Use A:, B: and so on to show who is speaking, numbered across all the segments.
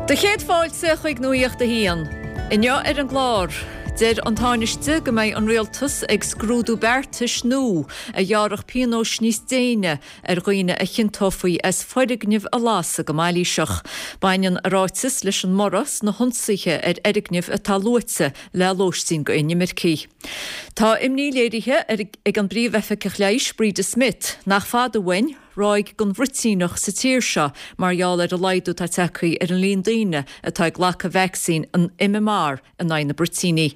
A: Do chéad fáilte chuig Nuacht a hAon. Inniu ar an gclár, deir an Tánaiste go mbeidh an Rialtas ag scrúdú beartais nua a ghearrfadh pionóis níos déine ar dhaoine a chiontófaí as foirgnimh a lasadh go mailíseach. Baineann a ráiteas leis an mborradh sna hionsaithe ar fhoirgnimh atá luaite le lóistín d'inimircigh. Tá imní léirithe ag an bPríomh-Oifigeach Leighis Breda Smith nach fada uainn ráig den bhruitíneach sa tír seo mar gheall ar an laghdú atá tagtha ar an líon daoine atá ag glacadh vacsaín an MMR in aghaidh na bruitíní.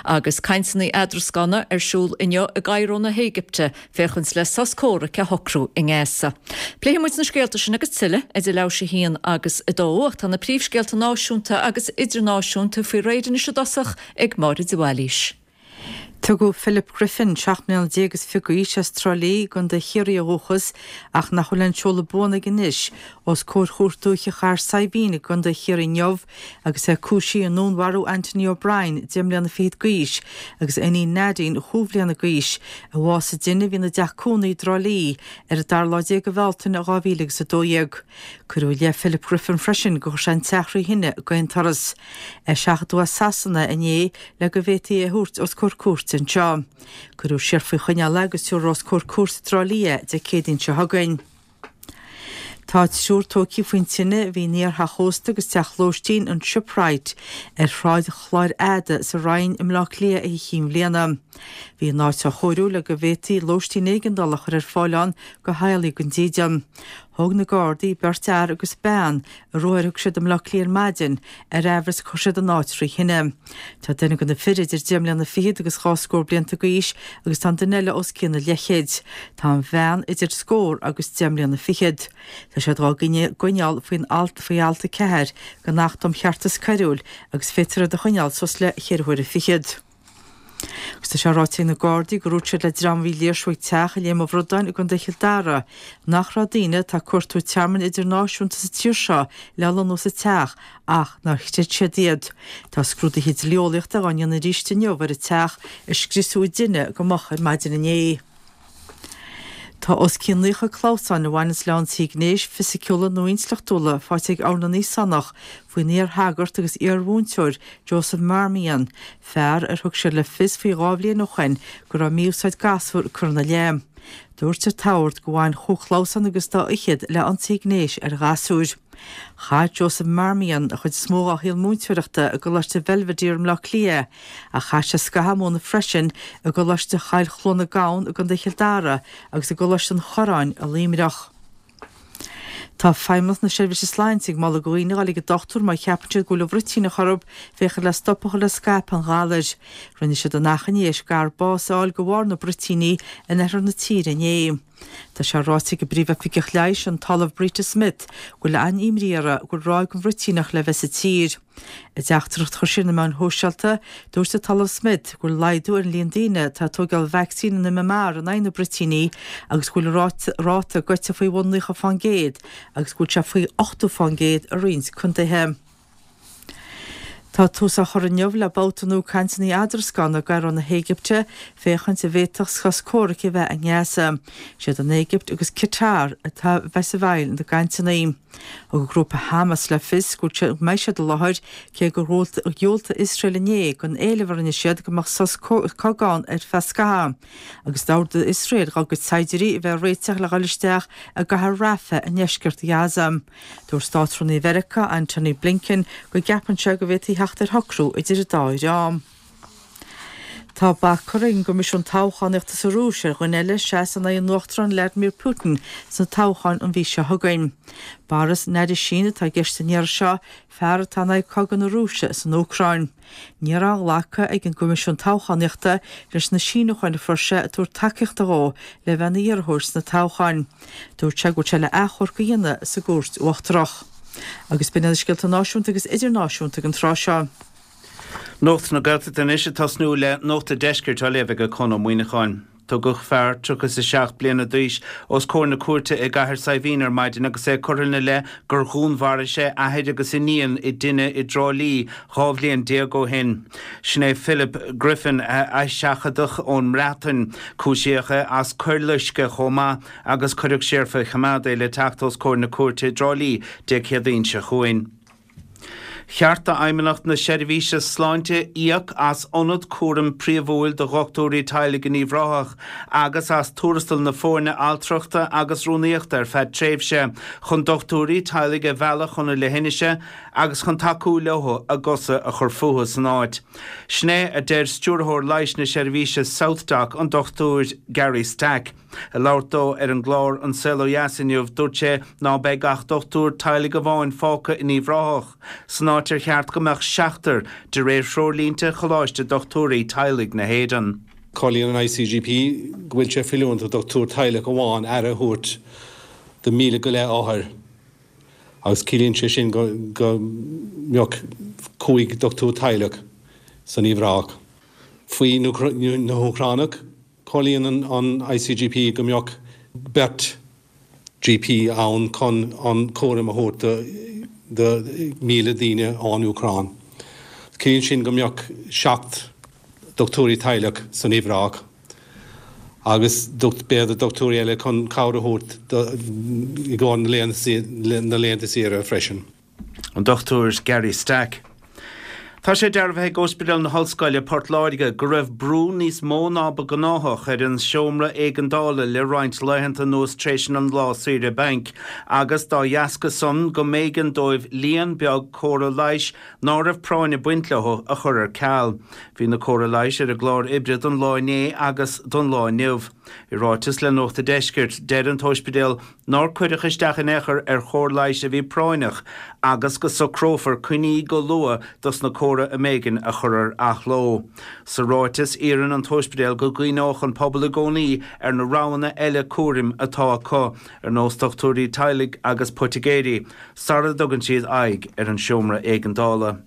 A: Agus cainteanna eadrascána ar siúl inniu i gCairo na hÉigipte féachaint le sos comhraic a shocrú i nGaza. Pléifidh muid na scéalta sin agus tuilleadh idir leathuair tar éis a haon agus a dó ach tá na príomhscéalta náisiúnta agus idirnáisiúnta faoi réir anois i dtosach ag Máire de Bhailís.
B: Tugadh Philip Griffin, 17 mbliana is fiche d'aois, as Trá Lí i gContae Chiarraí ó dhúchas, ach nach bhfuil aon seoladh buan aige anois, os comhair Chúirt Dúiche Chathair Saidhbhín i gContae Chiarraí inniu agus é cúisithe i ndúnmharú Anthony O'Brien, 10 mbliana fichead d'aois, agus a iníon Nadine, chúig bhliana d'aois, a bhásaigh i dtine a bhí ina dteach cónaí i dTrá Lí ar an dara lá déag de Bhealtaine 2012. Cuireadh i leith Philip Griffin freisin gur chuir sé an teach thrí thine d'aon turas. É seachadadh as Sasana inné le go bhféadfaí é a thabhairt os comhair cúirte anseo. Cuireadh siar faoi choinneáil é agus tabharfar os comhair cúirte i dTrá Lí é Dé Céadaoin seo chugainn. Tá triúr tógtha faoin tine a bhí in iar-theach ósta agus teach lóistín an Shipwright ar Shráid Chláir Fhada sa Rinn i mBleá Cliath Oíche Chinn Bhliana. Bhí an áit á chóiriú le go bhféadfaí lóistín éigeandála a chur ar fáil ann do theaghlaigh gan dídean. Thóg na Gardaí beirt fhear agus bean ar ruathar a thug siad i mBleá Cliath ar maidin ar aimhreas gur chuir siad an áit thrí thine. Tá duine de na fir idir deich mbliana fichead agus dhá scór blianta d'aois agus tá an duine eile os cionn an leithchéid. Tá an bhean idir scór agus deich mbliana fichead. Tá siad dhá gcoinneáil faoin alt faoi alt 4 den Acht um Cheartas Coiriúil agus féadfar iad a choinneáil suas le ceithre huaire fichead. Agus tá sé ráite ag na Gardaí gur dhúirt siad le dream a bhí ag léirsiú ag teach i Léim an Bhradáin i gContae Chill Dara nach raibh daoine atá ag cuartú tearmainn idirnáisiúnta sa tír seo le lonnú sa teach ach nár chreid siad iad. Tá scrúduithe dlí-eolaíochta dhá ndéanamh arís inniu ar an teach a scriosadh i dtine go moch ar maidin inné. Tá os cionn 90 clamhsán a bhaineanns le ionsaithe gnéis, fisiciúla nó intleachtúla faighte ag Ord na nÍosánach faoin iar-shagart agus iar-mhúinteoir Joseph Marmion, fear ar thug siad le fios faoi dhá bhliain ó shoin go raibh mí-úsáid gasúr curtha ina leith. Dúirt an tOrd gur bhain chúig chlamhsán agus dá fhichead le ionsaithe gnéis ar ghasúir. Chaith Joseph Marmion an chuid is mó dá shaol múinteoireachta i gColáiste Bhelvedere i mBleá Cliath ach chaith sé scaitheamh ag múineadh freisin i gColáiste Choill Chluana Gabhann i gContae Chill Dara agus i gColáiste an Chorráin i Luimneach. Tá Feidhmeannacht na Seirbhíse Sláinte ag moladh do dhaoine a dhul ag an dochtúir má cheapann siad go bhfuil an bhruitíneach orthu féachaint le stop a chur le scaipeadh an ghalair. Rinne siad an achainí théis gadhar bás a fháil de bharr na bruitíní in oirthear na tíre inné. Tá sé ráite ag an bPríomh-Oifigeach Leighis, an tOllamh Breda Smith, go bhfuil an-imní uirthi go bhfuil ráig den bhruitíneach le bheith sa tír. I dteachtaireacht a chuir sí ar na meáin shóisialta, dúirt an tOllamh Smith go bhfuil laghdú ar an líon daoine atá ag tógáil vacsaín an MMR in aghaidh na bruitíní agus go bhfuil an ráta gaibhte faoi bhun 90% agus go bhfuil sé faoi 80% i roinnt contaetha. Tá tús á chur inniu le babhta nua cainteanna eadrascána i gCairo na hÉigipte féachaint an bhféadfadh sos comhraic a bheith i nGaza. Siad an Éigipt agus Qatar atá a bheas i bhfeighil na gcainteanna. Thug an grúpa Hamas le fios go mbeidh siad i láthair cé gur dhiúltaigh Iosrael inné don éileamh a rinne siad go mbeadh sos cogaidh ann ar feadh scaithimh agus d'ordaigh Iosrael dá gcuid saighdiúirí a bheith ag réiteach le dhul isteach i gcathair Rafah i ndeisceart Ghaza. Dúirt Státrúnaí Mheiriceá, Antony Blinken, go gceapann sé go bhféadfaí theacht ar shocrú idir an dá dhream. Tá bac curtha ag an gCoimisiún Toghchánaíochta sa Rúis ar dhuine eile seasamh in aghaidh an Uachtaráin Vladimir Putin sna toghcháin an mhí seo chugainn. Boris Nadezhdin atá i gceist an iarraidh seo, fear atá in aghaidh cogadh na Rúise san Úcráin. Ní raibh aon ghlacadh ag an gCoimisiún Toghchánaíochta leis na síniúcháin a fuair sé ag tabhairt tacaíochta dhó le bheith ina iarrthóir sna toghcháin. Dúirt sé go bhfuil sé le achomharc a dhéanamh sa gCúirt Uachtarach. Agus b'in iad na scéalta náisiúnta agus idirnáisiúnta ag an tráth seo.
C: Nuacht na Gaeltachta anois ag tosnú le Nuacht an Deiscirt á léamh ag Conn Ó Muíneacháin. Tugadh fear 37 bliana d'aois os comhair na cúirte i gCathair Saidhbhín ar maidin agus é curtha ina leith gur dhúnmharaigh sé athair agus iníon i dtine i dTrá Lí 12 bhliain ó shin. Sin é Philip Griffin a seachadadh ón mBreatain. Cúisíodh é as coir loiscthe chomh maith agus cuireadh siar faoi choimeád é le teacht os comhair na cúirte i dTrá Lí Dé Céadaoin seo chugainn. Cheart d'Fheidhmeannacht na Seirbhíse Sláinte íoc as ionad cúraim príomhúil do dhochtúirí teaghlaigh in Uíbh Ráthach agus as tuarastal na foirne altrachta agus rúnaíochta ar feadh tréimhse chun dochtúirí teaghlaigh a mhealladh chun na leithinise agus chun tacú leo a gcosa a chur fúthu san áit. Sin é a deir Stiúrthóir Leighis na Seirbhíse SouthDoc, an Dr Gary Stack. Ag labhairt dó ar an gclár An Saol Ó Dheas inniu, dúirt sé ná beidh ach dochtúir teaghlaigh amháin fágtha in Uíbh Ráthach, san áit ar cheart go mbeadh seachtar, de réir threoirlínte Choláiste Dochtúirí Teaghlaigh na hÉireann.
D: Comhairlíonn an ICGP go bhfuil sé feiliúnach do dhochtúir teaghlaigh amháin aire a thabhairt do 1,000 go leith othar agus ciallaíonn sé sin go mbeadh 5 dochtúir teaghlaigh san Uíbh Ráthach. Faoi na hÚcránaigh, Comhairlíonn an ICGP go mbeadh beirt GP ann chun an cúram a thabhairt do 1,000 daoine ón Úcráin. Ciallaíonn sin go mbeadh 7 dochtúirí teaghlaigh san Uíbh Ráthach agus b'fhéidir dochtúirí eile chun cabhair a thabhairt i gcomhair na laethanta saoire freisin.
C: An Dr Gary Stack. Tá sé dearbhaithe ag Ospidéal na hOllscoile, Port Láirge, go raibh brú níos mó ná ba gnáthach ar an seomra éigeandála le roinnt laethanta anuas tréis an lá saoire bainc agus dá dheasca san go mb'éigean dóibh líon beag córa leighis ná raibh práinn ag baint leo a chur ar ceal. Bhí na córa leighis ar an gclár oibre don lá inné agus don lá inniu. I ráiteas le Nuacht a' Deiscirt, deir an t-óispidéal nár cuireadh isteach in aon chor ar chóir leighis a bhí práinneach agus go socrófar coinní go luath dos na córa a mb'éigean a chur ar athló. Sa ráiteas, iarrann an t-óispidéal go gcuimhneodh an pobal i gcónaí ar na roghanna eile cúraim atá acu, ar nós dochtúirí teaghlaigh agus poitigéirí, sara dtugann siad aghaidh ar an seomra éigeandála.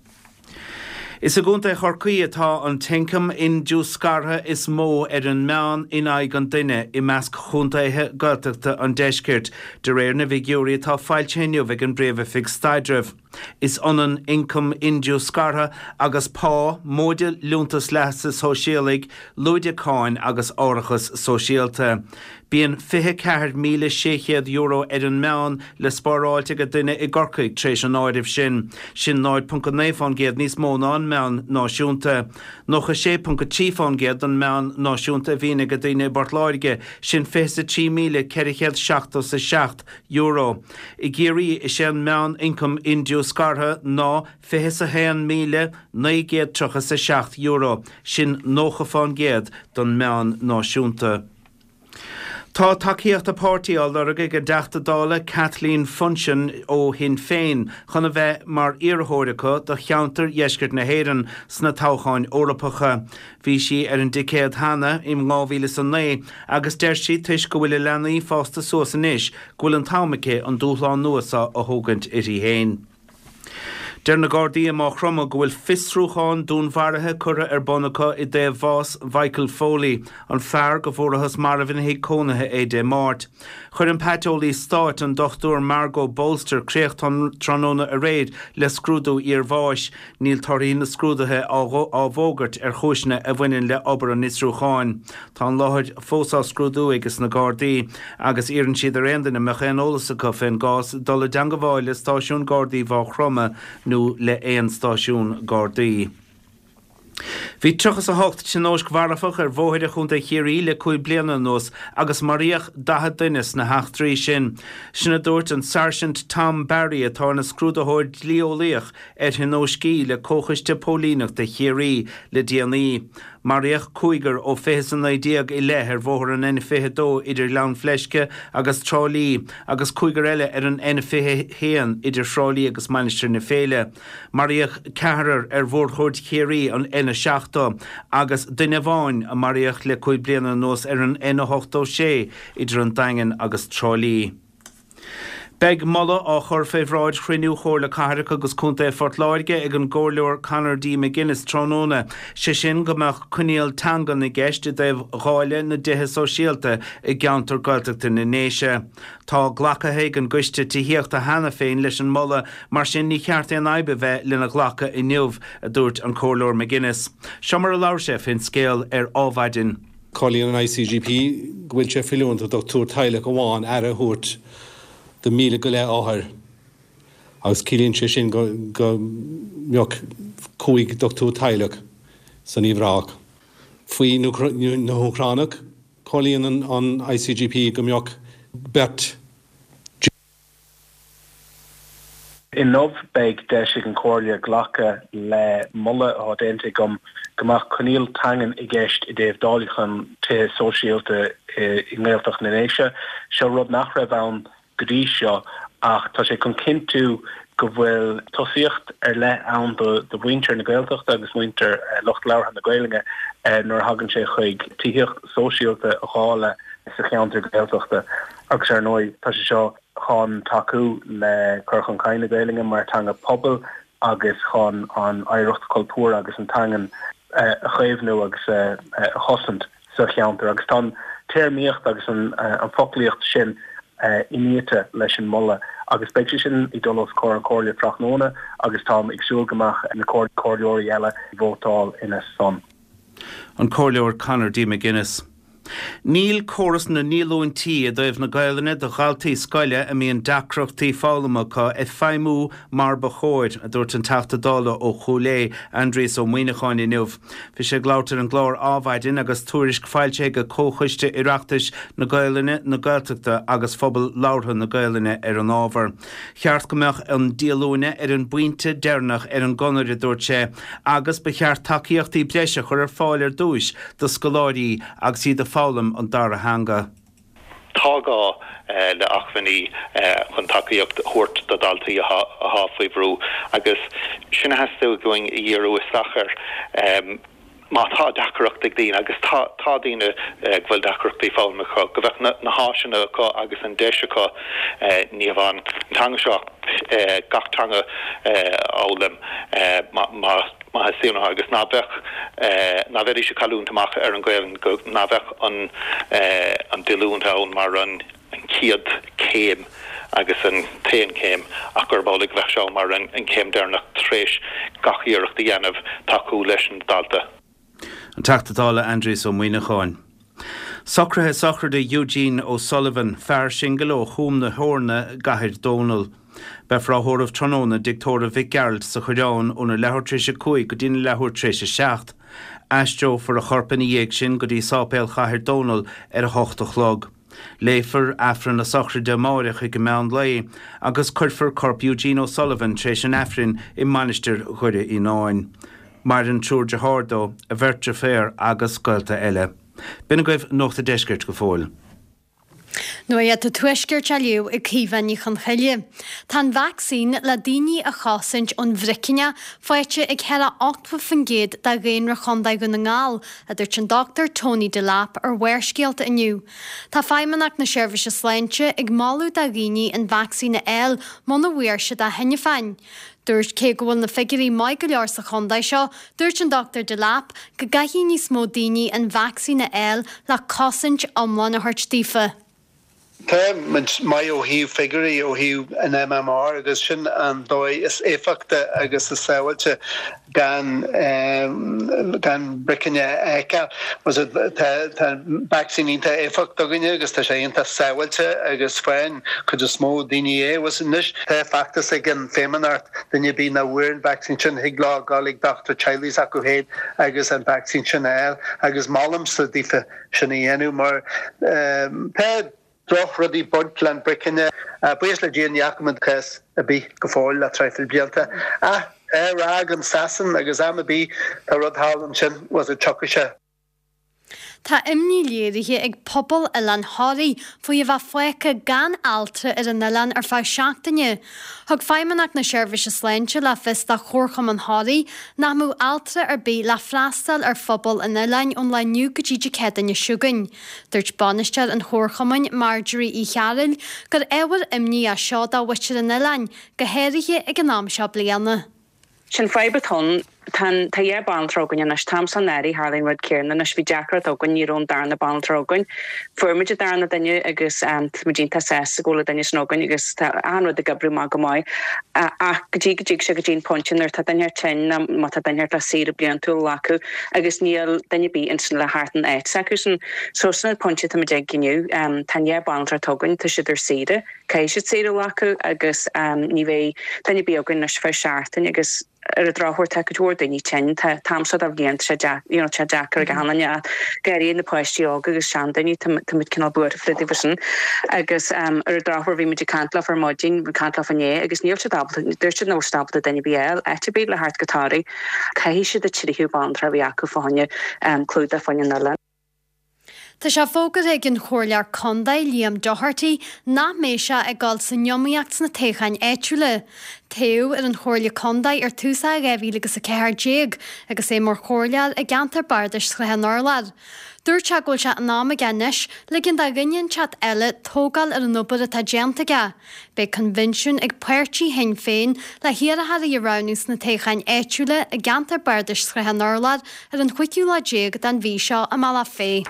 C: Is i gContae Chorcaí atá an t-ioncam indiúscartha is mó ar an meán in aghaidh an duine i measc chontaetha Gaeltachta an deiscirt, de réir na bhfigiúirí atá foilsithe inniu ag an bPríomh-Oifig Staidrimh. Is ionann ioncam indiúscartha agus pá, móide liúntas leasa shóisialaigh, lúide cáin agus árachas sóisialta. Bíonn €24,600 ar an meán le spáráilt ag duine i gCorcaigh tar éis an áirimh sin. Sin 0.9% níos mó ná an meán náisiúnta. 96.3% den meán náisiúnta a bhíonn ag daoine i bPort Láirge, sin €23,477. I gCiarraí, is é an meán-ioncam indiúscartha ná €21,937, sin 90% den meán náisiúnta. Tá tacaíocht a páirtí á lorg ag an dTeachta Dála Kathleen Funchion ó Shinn Féin chun a bheith mar iarrthóir acu do cheantar Dheisceart na hÉireann sna toghcháin Eorpacha. Bhí sí ar an dticéad cheana in 2009 agus deir sí toisc go bhfuil a leanaí fásta suas anois go bhfuil an t-am aici an dúshlán nua seo a thógaint uirthi féin. Deir na Gardaí i Maigh Chromtha go bhfuil fiosrúchán dúnmharaithe curtha ar bun acu i dtaobh bhás Mhichael Foley, an fear go bhfuarathas marbh ina thigh cónaithe é Dé Máirt. Chuir an Paiteolaí Stáit, an Dr Margot Bolster, críoch tráthnóna aréir le scrúdú iarbháis. Níl torthaí na scrúduithe á bhfógairt ar chúiseanna a bhaineann le obair an fhiosrúcháin. Tá an láthair fós á scrúdú ages na Gardaí agus iarrann siad ar aon duine a mbeadh aon eolas acu fén gcás dul i dteangabháil le stáisiún Gardaí Mhaigh Chromtha nó le haon stáisiún Gardaí. Bhí 38 tionóisc mharfach ar bhóithre Chontae Chiarraí le 5 bliana anuas agus maraíodh 40 duine sna heachtraí sin. Sin a dúirt an Sáirsint Tom Barry atá ina scrúdaitheoir dlí-eolaíoch ar thionóiscí le Comhchoiste Póilíneachta Chiarraí le déanaí. Maraíodh cúigear ó 2019 i leith ar bhóthar an N22 idir Ghleann Fleisce agus Trá Lí agus cúigear eile ar an N21 idir Thrá Lí agus Mainistir na Féile. Maraíodh ceathrar ar Mhórchuaird Chiarraí, an N70, agus duine amháin a maraíodh le 5 bliana anuas ar an N86 idir an Daingean agus Trá Lí. Beidh moladh á chur fé bhráid chruinniú Chomhairle Cathrach agus Contae Phort Láirge ag an gComhairleoir Conor D. McGuinness tráthnóna, sé sin go mbeadh coinníoll teangan i gceist i dtaobh dháileadh na dtithe sóisialta i gceantar Gaeltachta na nDéise. Tá glacaithe ag an gCoiste Tithíochta cheana féin leis an moladh, mar sin ní cheart aon fhadhb a bheith lena ghlacadh inniu, a dúirt an Comhairleoir McGuinness. Seo mar a labhair sé fén scéal ar Ádhmhaidin.
D: Comhairlíonn an ICGP go bhfuil sé feiliúnach do dhochtúir teaghlaigh amháin aire a thabhairt do 1,000 go leith othar. Agus ciallaíonn sé sin go mbeadh 5 dochtúir teaghlach san Uíbh Ráthach. Faoi na hÚcránaigh, comhairlíonn an ICGP go mbeadh beirt.
E: Inniu beidh deis ag an Chomhairle glacadh le moladh atá déanta agam go mbeadh coinníoll teangan i gceist i dtaobh dáileachán tithe sóisialta i nGaeltacht na nDéise. Seo rud nach raibh ann go dtí seo ach tá sé chun cinntiú go bhfuil tosaíocht ar leith ann do mhuintir na Gaeltachta agus muintir lucht labhartha na Gaelainne nuair a thagann sé chuig tithíocht sóisialta a dháileadh sa cheantar Gaeltachta agus ar ndóigh tá sé seo chun tacú le cur chun cinn na Gaelainne mar teanga pobail agus chun an oidhreacht chultúrtha agus an teangan a chaomhnú agus a chosaint sa cheantar. Agus tá an téarmaíocht agus an foclaíocht sin iniata leis an moladh agus beidh sé sin ag dul os comhair an Chomhairle tráthnóna agus táim ag súil go mbeadh na comhairleoirí eile ag vótáil ina son.
C: An Comhairleoir Conor D. McGuinness. Níl córas na ndíolúintí i dtaobh na Gaelainne do dhaltaí scoile a mbíonn deacrachtaí foghlama acu ag feidhmiú mar ba chóir, a dúirt an Teachta Dála ó Chúil Aodha, Aindrias Ó Muimhneacháin inniu. Bhí sé ag labhairt ar an gclár Adhmhaidin agus tuairisc foilsithe ag Comhchoiste Oireachtais na Gaelainne, na Gaeltachta agus Phobal Labhartha na Gaelainne ar an ábhar. Cheart go mbeadh an díolúine ar an bpointe deireanach ar an gconair, a dúirt sé, agus ba cheart tacaíochtaí breise a chur ar fáil ar dtúis do scoláirí agus iad ag foghlaim an dara theanga.
F: Tá gá le acmhainní chun tacaíocht a thabhairt do dhaltaí atá faoi bhrú agus sin a theastaigh uainn a dhíriú isteach air. Má tá deacracht ag daoine, agus tá, tá daoine go bhfuil deacrachtaí foghlama acu, go mbeadh na háiseanna acu agus an deis acu ní hamháin an teanga seo ach gach teanga a fhoghlaim má theastaíonn uathu agus ná beadh, ná bheidís ag cailliúint amach ar an Ghaelainn, go, ná bheadh an an díolúine ann mar an. an chéad chéim agus an t-aon chéim ach gurb amhlaidh go bheadh sé mar an chéim deireanach tar éis gach iarracht a dhéanamh tacú leis an dalta.
C: An Teachta Dála Aindrias Ó Muimhneacháin. Socruithe sochraide Eugene O'Sullivan, fear singil ó Chúm na hEorna i gCathair Dónall. Beifear á thórramh tráthnóna i dTigh Tórraimh Mhic Gearailt sa Choireán óna leathuair tar éis 5 go dtína leathuair tar éis 7. Aistreofar a chorp ina dhiaidh sin go dtí Sáipéal Chathair Dónall ar a hocht a chlog. Léifear Aifreann na sochraide amáireach ag meán lae agus cuirfear corp Eugene O'Sullivan tar éis an Aifrinn i Mainistir Dhoire Fhíonáin. Maireann triúr dearthár dó, a bheirt deirféar agus gaolta eile. B'in agaibh Nuacht a' Deiscirt go fóill.
G: Nuacht an Tuaiscirt á léamh ag Caoimhe Ní Chonchoille. Tá an vacsaín le daoine a chosaint ón bhricinneach faighte ag thar 80% de dhaonra Chontae Dhún na nGall, a dúirt an Dr Tony Delap ar Bharrscéalta inniu. Tá Feidhmeannacht na Seirbhíse Sláinte ag moladh do dhaoine an vacsaín a fháil muna bhfuair siad é cheana féin. Dúirt cé go bhfuil na figiúirí maith go leor sa chontae seo, dúirt an Dr Delap go gcaithfidh níos mó daoine an vacsaín a fháil le cosaint iomlán a thabhairt daofa.
H: Tá muid maith ó thaobh figiúirí, ó thaobh an MMR agus sin an dóigh is éifeachta agus is sábháilte gan gan bricinne a fheiceáil. Tá tá an vacsaín iontach éifeachtach againne agus tá sé iontach sábháilte agus faigheann cuid is mó daoine é. Anois tá feachtas ag an Feidhmeannacht duine ar bith nach bhfuair an vacsaín sin thig leo dul ag dochtúir teaghlaigh s'acu féin agus an vacsaín sin a fháil agus molaimse daofa sin a dhéanamh mar tá drochrudaí ag baint le an bricinne. Buíochas le Dia ní fhaca muid cás ar bith go fóill le traidhfil blianta. Ach tá ráig ann i Sasain agus am ar bith tá rud thall ansin was it tiocfaidh sé.
G: Tá imní léirithe ag pobal Oileán Thoraí faoi a bheith fágtha gan altra ar an oileán ar feadh seachtaine. Thug Feidhmeannacht na Seirbhíse Sláinte le fios do Chomharchumann Thoraí nach mbeadh altra ar bith le freastal ar phobal an oileáin ón lá inniu go dtí Dé Céadaoine seo chugainn. Dúirt bainisteoir an Chomharchumainn, Marjorie Uí Chearúil, gur ábhar imní é seo do mhuintir an oileáin, go háirithe ag an am seo bliana.
I: Sin fadhb atá ann. Tá an, tá 2 banaltra againn anois. An t-am seo anuraidh tharlaigh an rud céanna anois. Bhí deacracht againn, ní raibh an darna banaltra againn. Fuair muid an darna duine agus tá muid iontach sásta go bhfuil an duine sin againn agus tá achan rud ag oibriú maith go maith. Ach go dtí go dtig sé go dtí an pointe nuair atá duine tinn nó má tá duine le saoire bliantúil a ghlacadh agus níl duine ar bith ansin le theacht in áit s'acusan. So sin an pointe atá muid ag inniu. Tá an 2 banaltra atá againn, tá siad ar saoire. Caithfidh siad saoire a ghlacadh agus ní bheidh duine ar bith againn anois ar feadh seachtain agus ar an drochuair tá cuid mhór daoine tinn. Tá an t-am seo de bhliain tá sé deacair, you know, tá sé deacair ag achan duine ach go háirithe na páistí óga agus seandaoine, tá tá muid cineál buartha fá dtaobh sin. Agus ar an drochuair bhí muid ag caint leofa ar maidin, ag caint leofa inné agus níl siad ábalta, dúirt siad nach bhfuil siad ábalta duine ar bith a fháil áit ar bith le theacht go Toraigh. Caithfidh siad an tríú banaltra a bhí acu fá choinne clúdach fá choinne an oileáin.
G: Tá sé fógartha ag an Chomhairleoir Contae, Liam Doherty, nach mbeidh sé ag dul san iomaíocht sna toghcháin áitiúla. Toghadh ar an Chomhairle Contae ar tús 2014 agus é mar chomhairleoir i gceantar bardais Shrath an Urláir. Dúirt sé go bhfuil sé in am aige anois ligean do dhuine inteacht eile tógáil ar an obair atá déanta aige. Beidh coinbhinsiún ag páirtí Shinn Féin le hiarrthóirí a roghnú sna toghcháin áitiúla i gceantar bardais Shrath an Urláir ar an chúigiú lá déag den mhí seo i mBealach Féich.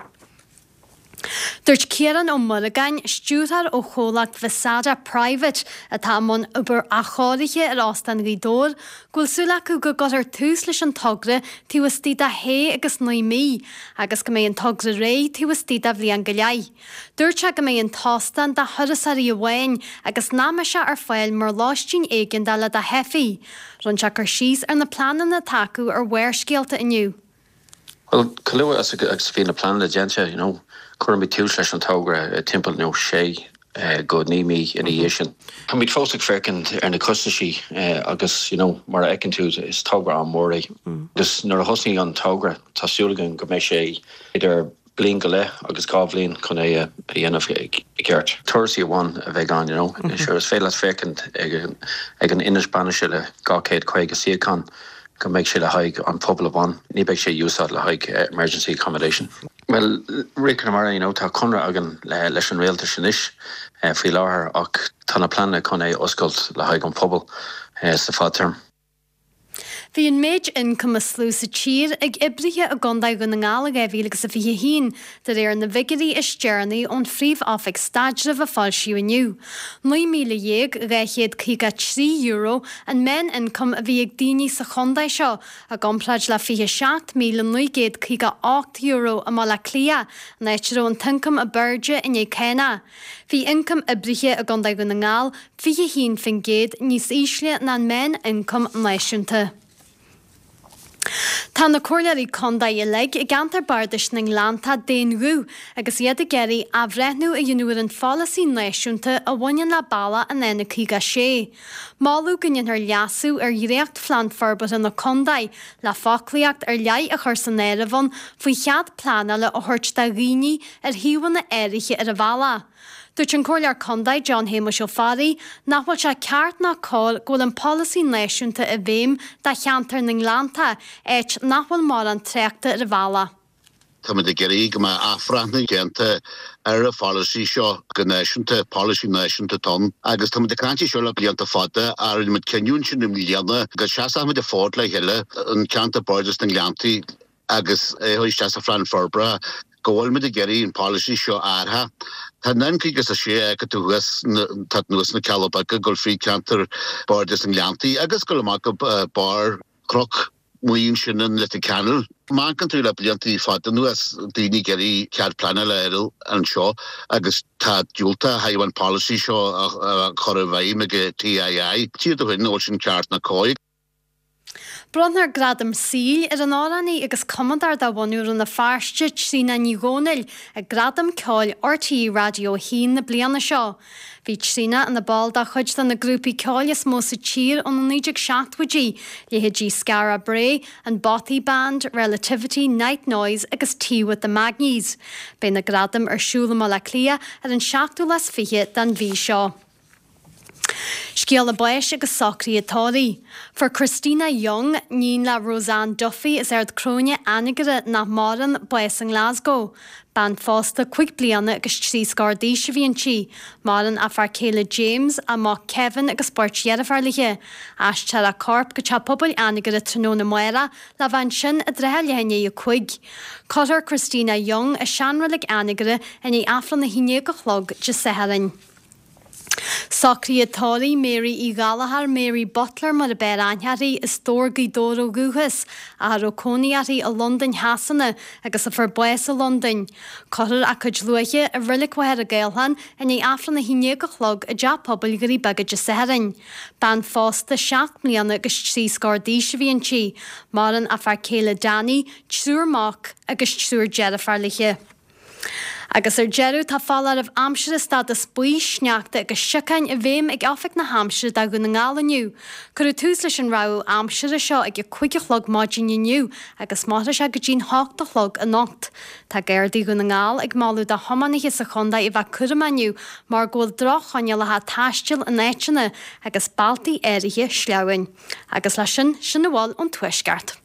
G: Dúirt Ciarán Ó Muireagáin, stiúrthóir ó chomhlacht Visada Private atá i mbun obair athchóirithe ar Óstán Ghaoth Dobhair, go bhfuil súil acu go gcuirfear tús leis an togra taobh istigh de shé agus naoi mí agus go mbeidh an togra réidh taobh istigh de bhliain go leith. Dúirt sé go mbeidh an t-óstán do thurasóirí amháin agus nach mbeidh sé ar fáil mar lóistín éigeandála do theifigh. Rinne sé cur síos ar na pleananna atá acu ar Bharrscéalta inniu.
J: Bhuel, chomh luath agus a bhí na pleananna déanta, you know, cuirfimid tús leis an togra timpeall, you know, sé go 9 mí ina dhiaidh sin. Táimid fós ag féachaint ar na costaisí agus, you know, mar a fheiceann tú, is togra an-mhór é. Agus nuair a thosnaíonn an togra, tá súil againn go mbeidh sé idir bliain go leith agus 2 bhliain chun é a dhéanamh i gceart. Turasóirí amháin a bheidh ann, you know. Sure, is féidir leat féachaint ag an ionad bainise le 250 suíochán go mbeidh sé le haghaidh an pobal amháin, ní beidh sé úsáid le haghaidh emergency accommodation. Bhuel, Rí Conamara, you know, tá conradh againn leis an rialtas anois faoi láthair ach tá na pleananna chun é a oscailt le haghaidh an pobal sa fadtéarma.
G: Bhí an méid ioncaim is lú sa tír ag oibrithe i gContae Dhún na nGall i 2021, de réir na bhfigiúirí is deireanaí ón Phríomh-Oifig Staidrimh a foilsíodh inniu. €19,253 an meán-ioncam a bhí ag daoine sa chontae seo, i gcomparáid le €27,958 i mBaile Átha Cliath, an áit a raibh an t-ioncam ab airde i ndiaidh cánach. Bhí ioncam oibrithe i gContae Dhún na nGall 21% níos ísle ná an meán-ioncam náisiúnta. Tá na Comhairleoirí Contae uilig i gceantar Bardais na nGleanntach d'aon ghuth agus iad ag iarraidh athbhreithniú a dhéanamh ar an pholasaí náisiúnta a bhaineann le bealach an N56. Moladh go ndéanfar leasú ar dhréachtphlean forbartha na contae le foclaíocht ar leith a chur san áireamh ann faoi chead pleanála a thabhairt do dhaoine ar shuíomhanna áirithe ar an bhealach. Dúirt an Comhairleoir Contae John Shéamuis Ó Fearraigh nach bhfuil sé ceart ná cóir go bhfuil an polasaí náisiúnta i bhfeidhm do cheantar na nGleanntach, áit nach bhfuil mórán tráchta ar an bhealach.
K: Táimid ag iarraidh go mbeadh athbhreithniú déanta ar an pholasaí seo go náisiúnta, polasaí náisiúnta atá ann. Agus táimid ag caint air seo le blianta fada ach rinne muid cinneadh ansin i mbliana go seasfadh muid an fód le chéile, an ceantar Bardais na nGleanntaí, agus é a chur isteach sa phlean forbartha, go bhfuil muid ag iarraidh an polasaí seo a athrú. Tá an N56 a fheiceann tú thuas, tá anuas na Cealla Beaga ag dul fríd ceantar Bardais na nGleanntaí agus ag dul amach go barr Chnoc Muí ansin in Leitir Ceanainn. Má amharcann tú le blianta fada anuas, daoine ag iarraidh cead pleanála a fháil anseo agus tá diúltach ó thaobh an polasaí seo a chur i bhfeidhm ag TII. Tchífidh tú féin an bhfuil sin ceart ná cóir.
G: Bronnfar Gradam Saoil ar an amhránaí agus cumadóir de bhunadh Rann na Feirste, Tríona Ní Dhomhnaill, ag Gradaim Ceoil RTÉ Raidió 1 na bliana seo. Bhí Tríona ina ball de chuid de na grúpaí ceoil is mó sa tír ó na 1970idí, leithéidí Skara Brae, an Bothy Band, Relativity, Night Noise agus Tea with the Magnies. Beidh na gradaim ar siúl i mBaile Átha Cliath ar an seachtú lá is 20 den mhí seo. Scéala báis agus socruithe tórraimh. Fuair Christina Young, níon le Roseanne Duffy as Ard Cróine, Anagaire, nach maireann, bás i nGlasgow. Bean phósta 5 bliana agus 3 scór d'aois a bhí inti. Maireann a fear céile James, a mac Kevin agus beirt dheirféar léi. Aistreofar a corp go Teach Pobail Anagaire tráthnóna amárach le bheith ansin i dtrátha leath i ndiaidh 5. Cuirfear Christina Young i seanreilig Anagaire i ndiaidh Aifreann 11 a chlog Dé Sathairn. Socruithe tórraimh Mary Uí Ghallchóir, Mary Butler mar ab fhearr aithne uirthi, as Dobhar, Gaoth Dobhair ó dhúchas, ach a raibh cónaí uirthi i Londain Shasana agus a fuair bás i Londain. Cuirfear a cuid luaithe i Reilig Mhachaire Gathlán i ndiaidh Aifreann 11 a chlog i dTeach Pobail Dhoirí Beaga Dé Sathairn. Bean phósta 7 mbliana agus 3 scór d'aois a bhí inti. Maireann a fear céile Danny, triúr mac agus triúr deirféar léi. Agus ar deireadh, tá foláireamh aimsire stádas buí, sneachta agus siocáin i bhfeidhm ag Oifig na hAimsire do Dhún na nGall inniu. Cuireadh tús leis an rabhadh aimsire seo ag a 5 a chlog maidin inniu agus mairfidh sé go dtí'n 8 a chlog anocht. Tá Gardaí Dhún na nGall ag moladh do thiománaithe sa chontae a bheith cúramach inniu mar go bhfuil droch-choinníollacha taistil in áiteanna agus bealtaí áirithe sleamhain. Agus leis sin, sin a bhfuil ón Tuaisceart.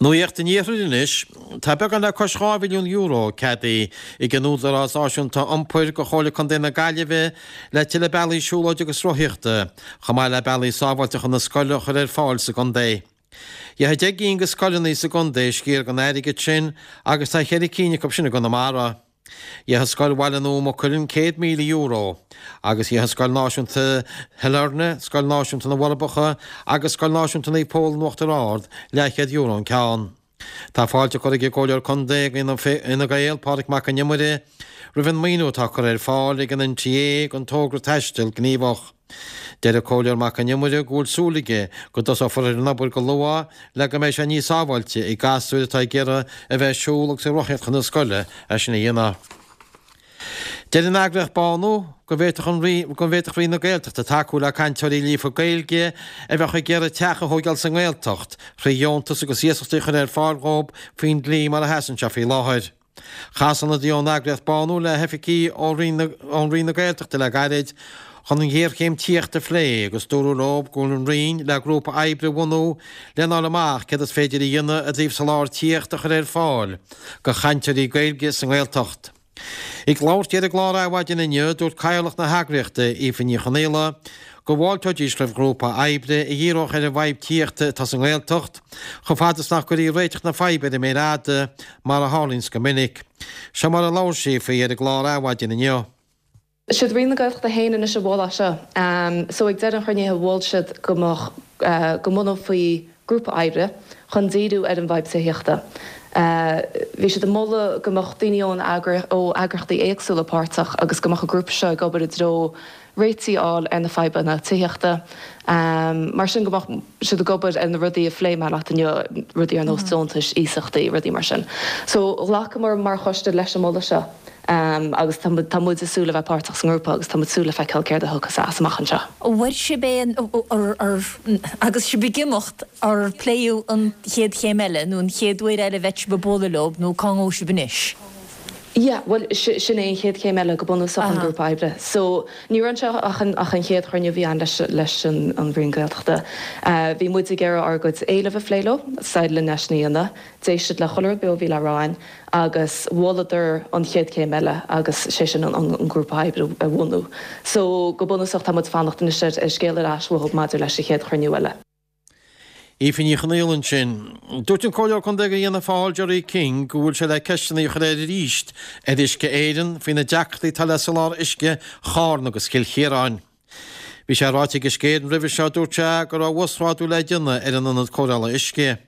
L: Nuacht an Iarthair anois. Tá beagán le cois €2 mhilliún ceadaithe ag an Údarás Náisiúnta Iompair do Chomhairle Contae na Gaillimhe le tuilleadh bealaí siúlóide agus rothaíochta, chomh maith le bealaí sábháilte chun na scoile a chur ar fáil sa gcontae. Gheobhaidh 10 gcinn de scoileanna sa gcontae sciar den airgead sin agus tá cheithre cinn acu sin i gConamara. Gheobhaidh Scoil Bhaile Nua Maigh Cuilinn €100,000 agus gheobhaidh Scoil Náisiúnta Shailearna, Scoil Náisiúnta na bhForbacha agus Scoil Náisiúnta Naomh Pól in Uachtar Ard leathchéad euro an ceann. Tá fáilte curtha ag an gComhairleoir Contae Fhine Gael, Pádraig Mac Con Iomaire, roimh an maoiniú atá curtha ar fáil ag an NTA don togra Taisteal Gníomhach. Deir an Comhairleoir Mac Con Iomaire go bhfuil súil aige go dtosófar ar an obair go luath le go mbeidh sé níos sábháilte ag gasúir atá ag iarraidh a bheith ag siúl agus ag rothaíocht chun na scoile é sin a dhéanamh. Deir an eagraíocht Bánú go bhféadfadh an go bhféadfadh Roinn na Gaeltachta tacú le cainteoirí líofa Gaeilge a bheadh ag iarraidh teach a thóigeáil sa nGaeltacht thrí dheontas agus iasachtaí a chur ar fáil dhóibh faoin dlí mar a sheasann sé faoi láthair. Chas ionadaí ón eagraíocht Bánú le hoifigigh ó Roinn na Gaeltachta le gairid chun an ghéarchéim tithíochta a phlé agus dúradh leo go bhfuil an Roinn le grúpa oibre a bhunú lena fháil amach céard is féidir a dhéanamh i dtaobh soláthar tithíochta a chur ar fáil do chainteoirí Gaeilge sa nGaeltacht. Ag labhairt di ar an gclár Adhmhaidin inniu, dúirt Cathaoirleach na heagraíochta, Aoife Ní Chonaola, go bhfáilteoidís roimh ghrúpa oibre a dhíreodh ar an bhfadhb tithíochta atá sa nGaeltacht, chomh fada is nach gcuirfí réiteach na faidhbe ar an méar fhada, mar a tharlaíonns go minic. Seo mar a labhair sí faoi ar an gclár Adhmhaidin inniu.
M: Siad Roinn na Gaeltachta féin anois a mhol é seo. So ag deireadh an chruinnithe mhol siad go mbeadh, go mbunófaí grúpa oibre chun díriú ar an bhfadhb tithíochta. Bhí siad ag moladh go mbeadh daoine ón ó eagraíochtaí éagsúla páirteach agus go mbeadh an grúpa seo ag obair i dtreo réitigh a fháil ar na fadhbanna tithíochta. Mar sin go mbeadh siad ag obair ar na rudaí a phléigh mé leat inniu, rudaí ar nós deontais, iasachtaí, rudaí mar sin. So ghlacamar mar choiste leis an moladh seo agus tá tá muid ag súil le bheith páirteach sa ngrúpa agus tá muid ag súil le feiceáil céard a thiocfas as amach anseo.
N: An bhfuair sibh aon, agus sibh ag imeacht, ar pléadh an chéad chéim eile nó an chéad uair eile a bheidh sibh ag bualadh leo nó cá ngabhfaidh sibh anois?
M: Yeah, bhuel, sin é an chéad chéim eile go bunúsach, an grúpa oibre. So, ní raibh anseo ach an, ach an chéad chruinniú a bhí ann leis, leis an, an Roinn Gaeltachta. Bhí muid ag iarraidh ár gcuid éileamh a phlé leo, d'éirigh linn é sin a dhéanamh. D'éist siad le chuile rud beo a bhí le rá againn agus mholadar an chéad chéim eile agus sé sin an, an, an grúpa oibre a bhunú. So, go bunúsach tá muid ag fanacht anois ar, ar scéal ar ais uathu maidir leis an chéad chruinniú eile.
L: Aoife Ní Chonaola ansin. Dúirt an Comhairleoir Contae do Fhianna Fáil, Gerry King, go bhfuil sé le ceisteanna a chur air arís ar Uisce Éireann faoi na deacrachtaí atá le soláthar uisce Charna agus Chill Chiaráin. Bhí sé ráite ag Uisce Éireann roimhe seo, dúirt sé, go raibh uasghrádú le déanamh ar an ionad cóireála uisce.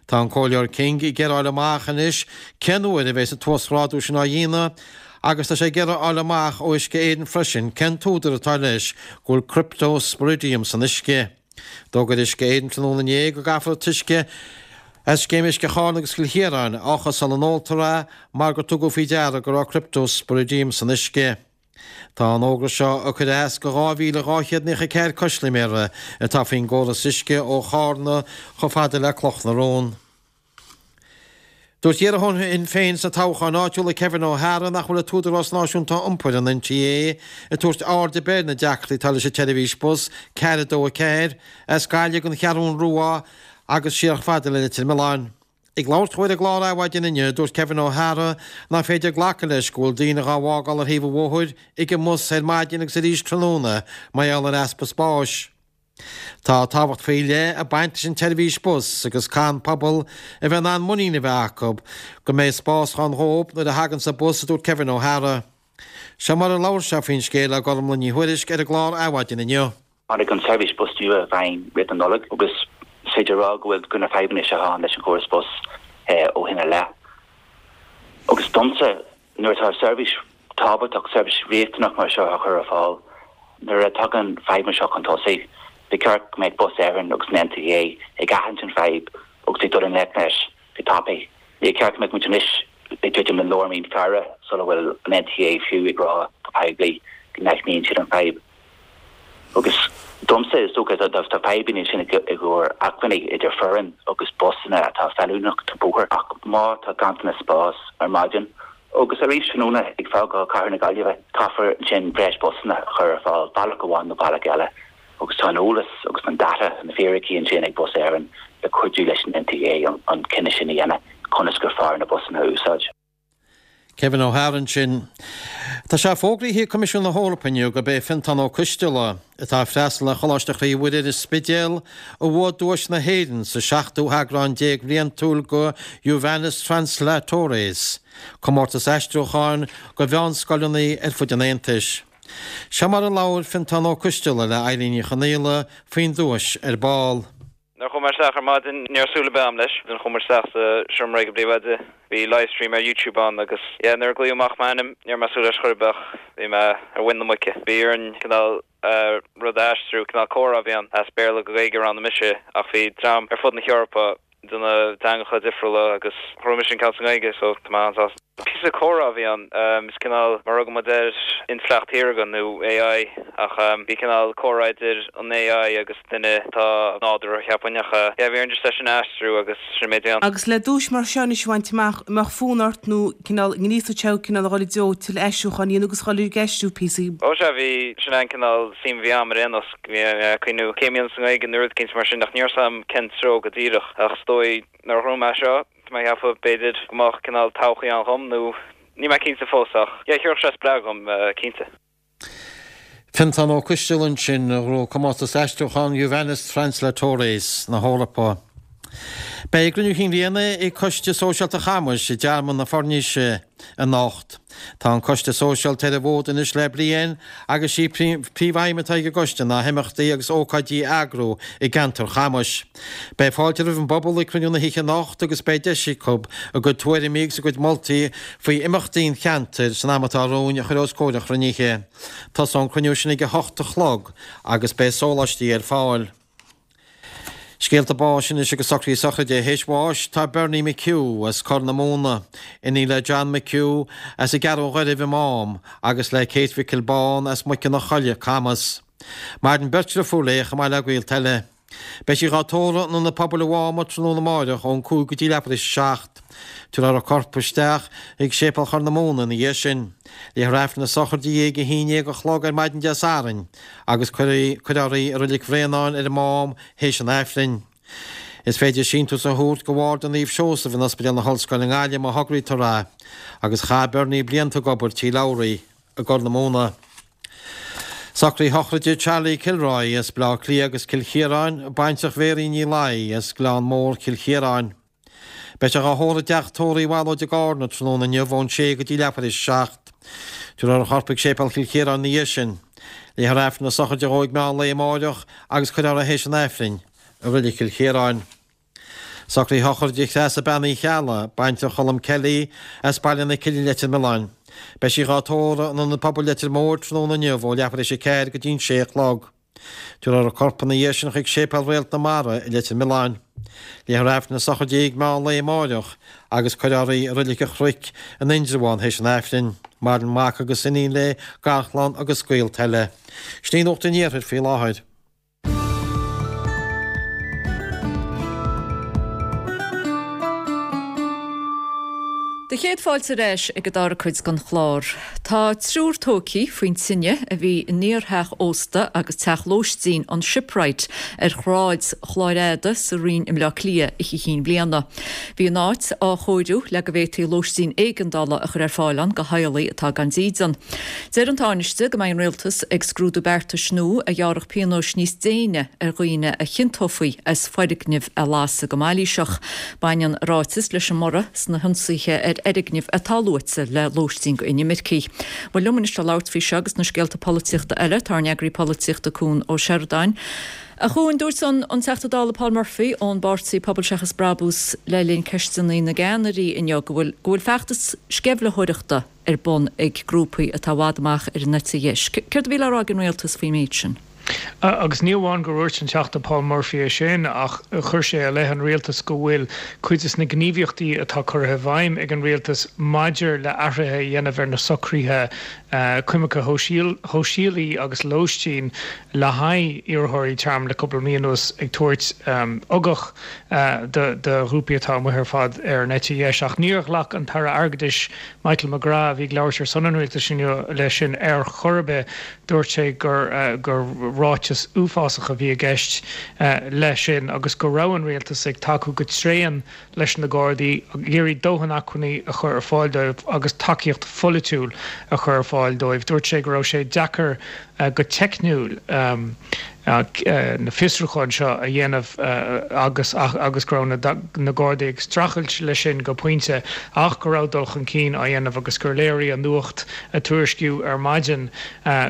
L: Tá an Comhairleoir King ag iarraidh a fháil amach anois cén uair a bheas an t-uasghrádú sin á dhéanamh agus tá sé ag iarraidh a fháil amach ó Uisce Éireann freisin cén t-údar atá leis go bhfuil cryptosporidium san uisce. D'fhógair Uisce Éireann tráthnóna inné go gcaithfear an t-uisce as Scéim Uisce Charna agus Chill Chiaráin a fhiuchadh sula n-óltar é mar gur tugadh faoi deara go raibh cryptosporidium san uisce. Tá an fhógra seo ag cur as go 2,294 custaiméara atá faoin gcóras uisce ó Chárna chomh fada le Cloch na Rón. Dúirt iarrthóir Shinn Féin sna toghcháin áitiúla Kevin O'Hara nach bhfuil an tÚdarás Náisiúnta Iompair, an NTA, ag tabhairt aird ar bith ar na deacrachtaí atá leis an tseirbhís bus 424 as Gaillimh don Cheathrún Rua agus siar chomh fada le Leitir Mealláin. Ag labhairt dhó ar an gclár Adhmhaidin inniu, dúirt Kevin O'Hara nach féidir glacadh leis go bhfuil daoine dhá bhfágáil ar thaobh an bhóthair ag an mbus ar maidin agus arís tráthnóna mar gheall ar easpa spáis. Tá tábhacht faoi leith ag baint leis an tseirbhís bus agus caithfidh an pobal a bheith in ann muinín a bheith acu go mbeidh spás ann dhóibh nuair a thaganns an bus, a dúirt Kevin O'Hara. Seo mar a labhair sé faoin scéal le Gormlaith Ní Thuairisg ar an gclár Adhmhaidin inniu.
O: Tháinig an tseirbhís bus nua i bhfeidhm roimh na Nollag agus is féidir a rá go bhfuil go na fadhbanna seo ann leis an chóras bus ó shin i leith. Agus domsa, Nuair atá seirbhís tábhachtach, seirbhís riachtanach mar seo á chur ar fáil, nuair a tagann fadhbanna seo chun tosaigh, ba cheart go mbeadh Bus Éireann agus an NTA ag aithint an fadhb agus ag dul i ngleic leis go tapaidh. Níor cheart go mbeadh muid anois ag druidim le lár mí Feabhra sula bhfuil an NTA fiú ag rá go poiblí go n-aithníonn siad an fadhb. Agus domsa, is dócha, tá fadhbanna ansin i gcomhair acmhainní idir foireann agus busanna atá feiliúnach don bóthar ach má tá ganntanas spáis ar maidin agus arís tráthnóna ag fágáil cathair na Gaillimhe, caithfear ansin breis busanna a chur ar fáil bealach amháin nó bealach eile agus tá an eolas agus an data, na fíricí ansin ag Bus Éireann le cuidiú leis an NTA an cinneadh sin a dhéanamh conas gur fearr na busanna a úsáid.
L: Kevin O'Hara ansin. Tá sé fógraithe ag Coimisiún na hEorpa inniu gurb é Fiontán Ó Coisteala, atá ag freastal ar Choláiste Chroí Mhuire ar an Spidéal, a bhuaigh duais na hÉireann sa seachtú heagrán bhliantúil de Juvenes Translatores, comórtas aistriúcháin do mheánscoileanna ar fud an Aontais. Seo mar a labhair Fiontán Ó Coisteala le Eilín Ní Chonaola faoin duais ar ball.
P: Nuair a chuaigh mé isteach ar maidin, ní raibh súil ar bith agam leis. Nuair a chuaigh muid isteach sa seomra ag an bpríomhoide, bhí livestream ar YouTube ann agus yeah, nuair a glaodh amach m'ainm, ní raibh mé ag súil leis chor ar bith ach bhí mé ar mhuin na muice. Bhí orainn cineál rud a aistriú, cineál comhrá a bhí ann, as Béarla go Gaeilge, roghnaigh mise ach bhí dream ar fud na hEorpa ag déanamh teangacha difriúla agus ghnóthaigh mise an ceann sa nGaeilge so tá mé an-sásta. Píosa comhrá a bhí ann, is cineál mar a thugann muid air intleacht shaorga nó AI ach bhí cineál comhrá idir an AI agus duine atá nádúrtha cheapfainn ach yeah bhí orainn just é sin a aistriú agus sin an méid a bhí ann.
Q: Agus le duais mar seo anois a bhaint amach, an mbeadh fonn ort nó cineál ngríosódh sé thú cineál a dhul i dtreo tuilleadh aistriúcháin a dhéanamh agus a dhul ag aistriú píosaí?
P: Ó sea, bhí, sin é an cineál suim a bhí agam ar aon nós, bhí mé ag cuimhniú céim a dhéanamh sa nGaeilge nó rud eicínt mar sin ach ní raibh 's agam cén treo go díreach ach is dóigh nuair a ghnóthaigh mé seo, Tá mé ag ceapadh b'fhéidir go mbeadh cineál todhchaí ann dhom nó níl mé cinnte fós ach yeah thabharfadh sé spreagadh dhom cinnte.
L: Fiontán Ó Coisteala ansin, a ghnóthaigh comórtas aistriúcháin Juvenes Translatores na hEorpa. Beidh cruinniú chinn bhliana ag Coiste Sóisialta Chamais i dTearmann na Foirnise anocht. Tá an Coiste Sóisialta ar an bhfód anois le bliain agus sí príomhaidhm atá ag an gcoiste ná himeachtaí agus ócáidí a eagrú i gceantar Chamais. Beidh fáilte roimh an bpobal ag cruinniú na hoíche anocht agus beidh deis acu a gcuid tuairimí agus a gcuid moltaí faoi imeachtaí an cheantair san am atá romhainn a chur os comhair an chruinnithe. Tosóidh an cruinniú sin ag a hocht a chlog agus beidh sóláistí ar fáil. Scéalta báis anois agus socruithe sochraide. Théis bháis tá Bernie McHugh as Corr na Móna, iníon le John McHugh as an gCeathrú Ghairbh i Mám agus le Kate Mhicil Bán as Muice na Coille, Camas. Maireann beirt dhriofúr léi chomh maith le gaolta eile. Beidh sí dhá tórramh in Ionad Pobail an Mháma tráthnóna amáireach ón 5 go dtí leathuair théis a 7. Tabharfar a corp isteach chuig Séipéal Chorr na Móna ina dhiaidh sin. Léifear Aifreann na sochraide di ag a haon dhéag a chlog ar maidin Dé Sathairn agus cuirfear í i Reilig Bhréanainn ar an Mám théis an Aifrinn. Is féidir síntiús a thabhairt go Bharda Naomh Seosamh in Ospidéal na hOllscoile i nGaillimh má thograítear é, agus chaith Bernie blianta ag obair Tí Labhraí i gCorr na Móna. Socruithe sochraide Charlie Kilroy as Baile Átha Cliath agus Cill Chiaráin, baintreach Mhéirín Ní Laoi as Gleann Mór, Cill Chiaráin. Beidh sé dhá thórramh i dteach tórraimh Uí Bhallóid i gCarna tráthnóna inniu ón sé go dtí leathuair théis a 7. Tabharfar a chorp chuig Séipéal Chill Chiaráin ina dhiaidh sin. Léifear Aifreann na sochraide dhó ag meán lae amáireach agus cuirfear é théis an Aifrinn i Reilig Chill Chiaráin. Socruithe sochraide Threasa Bean Uí Cheallaigh, baintreach Cholm Kelly, as Baile na Cille Leitir Mealláin. Beidh sí dhá tórramh in Ionad Pobail Leitir Móir tráthnóna inniu ó leathuair théis a 4 go dtí an sé a chlog. Tabharfar a corp ina dhiaidh sin chuig Séipéal Réalt na Mara i Leitir Mealláin. Léifear Aifreann na sochraide di ag meán lae amáireach agus cuirfear í i Reilig an Chnoic in Indreabhán théis an Aifrinn. Maireann mac agus iníon léi, garchlann agus gaolta eile. Sin í Nuacht an Iarthair faoi láthair.
A: Do chéad fáilte ar ais ag an dara cuid den chlár. Tá triúr tógtha faoin tine a bhí in iartheach ósta agus teach lóistín an Shipwright ar Shráid Chláir Fhada sa Rinn i mBleá Cliath Oíche Chinn Bliana. Bhí an áit á chóiriú le go bhféadfaí lóistín éigeandála a chur ar fáil ann do theaghlaigh atá gan dídean. Deir an Tánaiste go mbeidh an Rialtas ag scrúdú beartais nua a ghearrfadh pionóis níos déine ar dhaoine a chiontófaí as foirgnimh a lasadh go mailíseach. Baineann a ráiteas leis an mborradh sna hionsaithe ar fhoirgnimh atá luaite le lóistín go inimircigh. Bhuel, liom anois le labhairt faoi seo agus na scéalta polaitíochta eile, tá ár n-eagraí polaitíochta Cuan Ó Seireadáin. A Chuain, dúirt an an Teachta Dála Paul Murphy ón bpáirtí Pobal Seachas Brabús le linn Ceisteanna na gCeannairí inniu go bhfuil go bhfuil feachtas sceimhlitheoireachta ar bun ag grúpaí atá i bhfad amach ar an eite dheis. Céard a bhí le rá ag an rialtas faoin méid sin?
R: Agus ní amháin gur dhúirt an Teachta Paul Murphy é sin ach chuir sé i leith an rialtais go bhfuil cuid de na gníomhaíochtaí atá curtha i bhfeidhm ag an rialtas maidir le athruithe a dhéanamh ar na socruithe coimirce shóisialaí agus lóistín le haghaidh iarrthóirí tearmainn le cúpla mí anuas ag tabhairt ugach do ghrúpaí atá amuigh ar fad ar an eite dheis. Ach níor ghlac an tAire Airgeadais Michael McGrath, a bhí ag labhairt ar son an rialtais inniu, leis sin ar chor ar bith. Dúirt sé gur gur ráiteas uafásach a bhí i gceist leis sin agus go raibh an rialtas ag tacú go tréan leis na Gardaí, ag iarraidh dóthain acmhainní a chur ar fáil dóibh agus tacaíocht pholaitiúil a chur ar fáil dóibh. Dúirt sé go raibh sé deacair go teicniúil na fiosrúcháin seo a dhéanamh agus agus go raibh na Gardaí ag streachailt leis sin go pointe ach go raibh dul chun cinn á dhéanamh agus gur léirigh an nuacht a tuairiscíodh ar maidin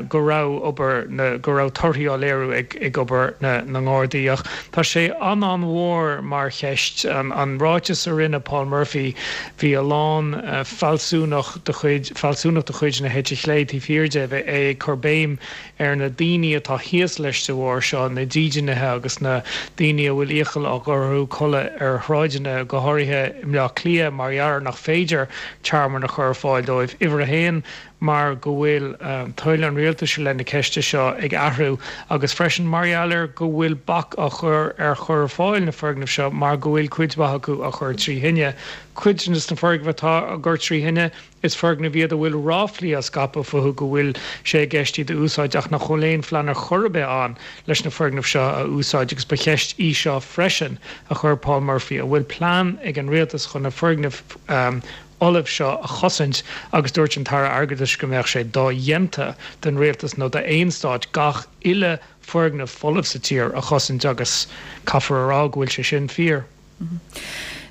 R: go raibh obair na go raibh torthaí á léiriú ag ag obair na na nGardaí. Ach tá sé an-an-mhór mar cheist. An ráiteas a rinne Paul Murphy, bhí a lán fealsúnach de chuid fealsúnacht de chuid na heite chlé taobh thiar de, é ag cur béim ar na daoine atá thíos leis de bharr seo, na dídeanaithe agus na daoine a bhfuil iachall á gcur orthu codladh ar shráideanna, go háirithe i mBleá Cliath, mar gheall ar nach féidir tearmann a chur ar fáil dóibh. Uimhir a haon, mar go bhfuil toil an rialtais i leith na ceiste seo ag athrú agus freisin mar gheall ar go bhfuil bac á chur ar chur ar fáil na foirgneamh seo mar go bhfuil cuid mhaith acu á chur trí thine. Cuid de na foirgnimh atá á gcur trí thine, Is foirgnimh iad a bhfuil ráflaí á scaipeadh fúthu go bhfuil sé i gceist iad a úsáid ach nach bhfuil aon phlean ar chor ar bith ann leis na foirgnimh seo a úsáid agus ba cheist í seo freisin a chuir Paul Murphy, an bhfuil plean ag an rialtas chun na foirgnimh fholamh seo a chosaint agus dúirt an tAire Airgeadais go mbeadh sé dodhéanta don rialtas nó d'aon stát gach uile foirgneamh folamh sa tír a chosaint agus caithfear a rá go bhfuil sé sin fíor.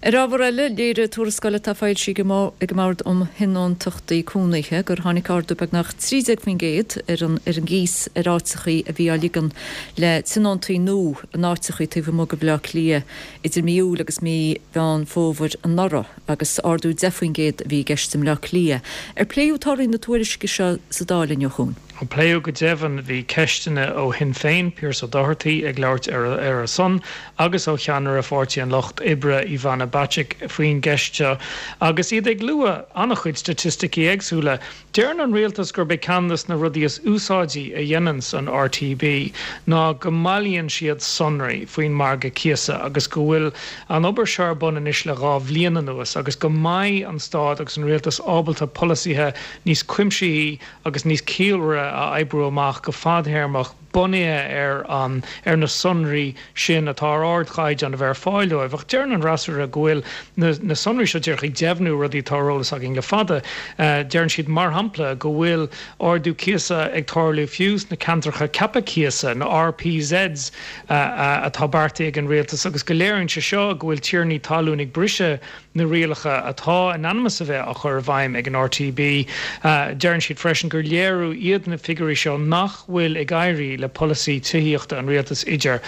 A: Ar ábhar eile, léirigh tuarascáil atá foilsithe ag an mBord um Thionóntachtaí Cónaithe gur tháinig ardú beagnach 13% ar an ar an gcíos ar áiteachaí a bhí á ligean le tionóntaí nua in áiteachaí taobh amuigh de Bhaile Átha Cliath idir mí Iúil agus mí Mheán Fómhair anuraidh agus ardú 10% a bhí i gceist i mBleá Cliath. Ar pléadh torthaí na tuairisce seo sa Dáil inniu, a Chuain?
R: Pléadh go deimhin. Bhí ceisteanna ó Shinn Féin, Pearse Doherty ag labhairt ar a son, agus ó cheannaire Pháirtí an Lucht Oibre, Ivana Bacik, faoin gceist seo agus iad ag lua an-chuid staitisticí éagsúla. Deireann an rialtas gurb é ceann de na rudaí is úsáidí a dhéananns an RTB ná go mbailíonn siad sonraí faoin margadh cíosa agus go bhfuil an obair seo ar bun anois le 2 bhliain anuas agus go mbeidh an stát agus an rialtas ábalta polasaithe níos cuimsithí agus níos ciallmhaire a oibriú amach go fadthéarmach bunaithe ar an ar na sonraí sin atá ar ardchaighdeán a bheith ar fáil dóibh. Ach deireann an fhreasúra go bhfuil na na sonraí seo díreach ag deimhniú rudaí atá ar eolas againn le fada. Deireann siad, mar shampla, go bhfuil ardú cíosa ag tarlú fiú sna ceantracha ceaptha cíosa, na RPZs, atá beartaithe ag an rialtas agus go léiríonn sé seo go bhfuil tiarnaí talún ag briseadh na rialacha atá in ainm is a bheith á chur i bhfeidhm ag an RTB. Deireann siad freisin gur léiriú iad na figiúirí seo nach bhfuil ag éirí le polasaí tithíochta an rialtais idir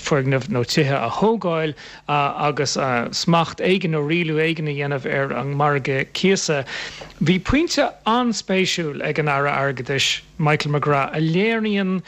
R: foirgnimh nó tithe a thógáil agus smacht éigin nó rialú éigin a dhéanamh ar an margadh cíosa. Bhí pointe an-spéisiúil ag an Aire Airgeadais, Michael McGrath, a léiríonn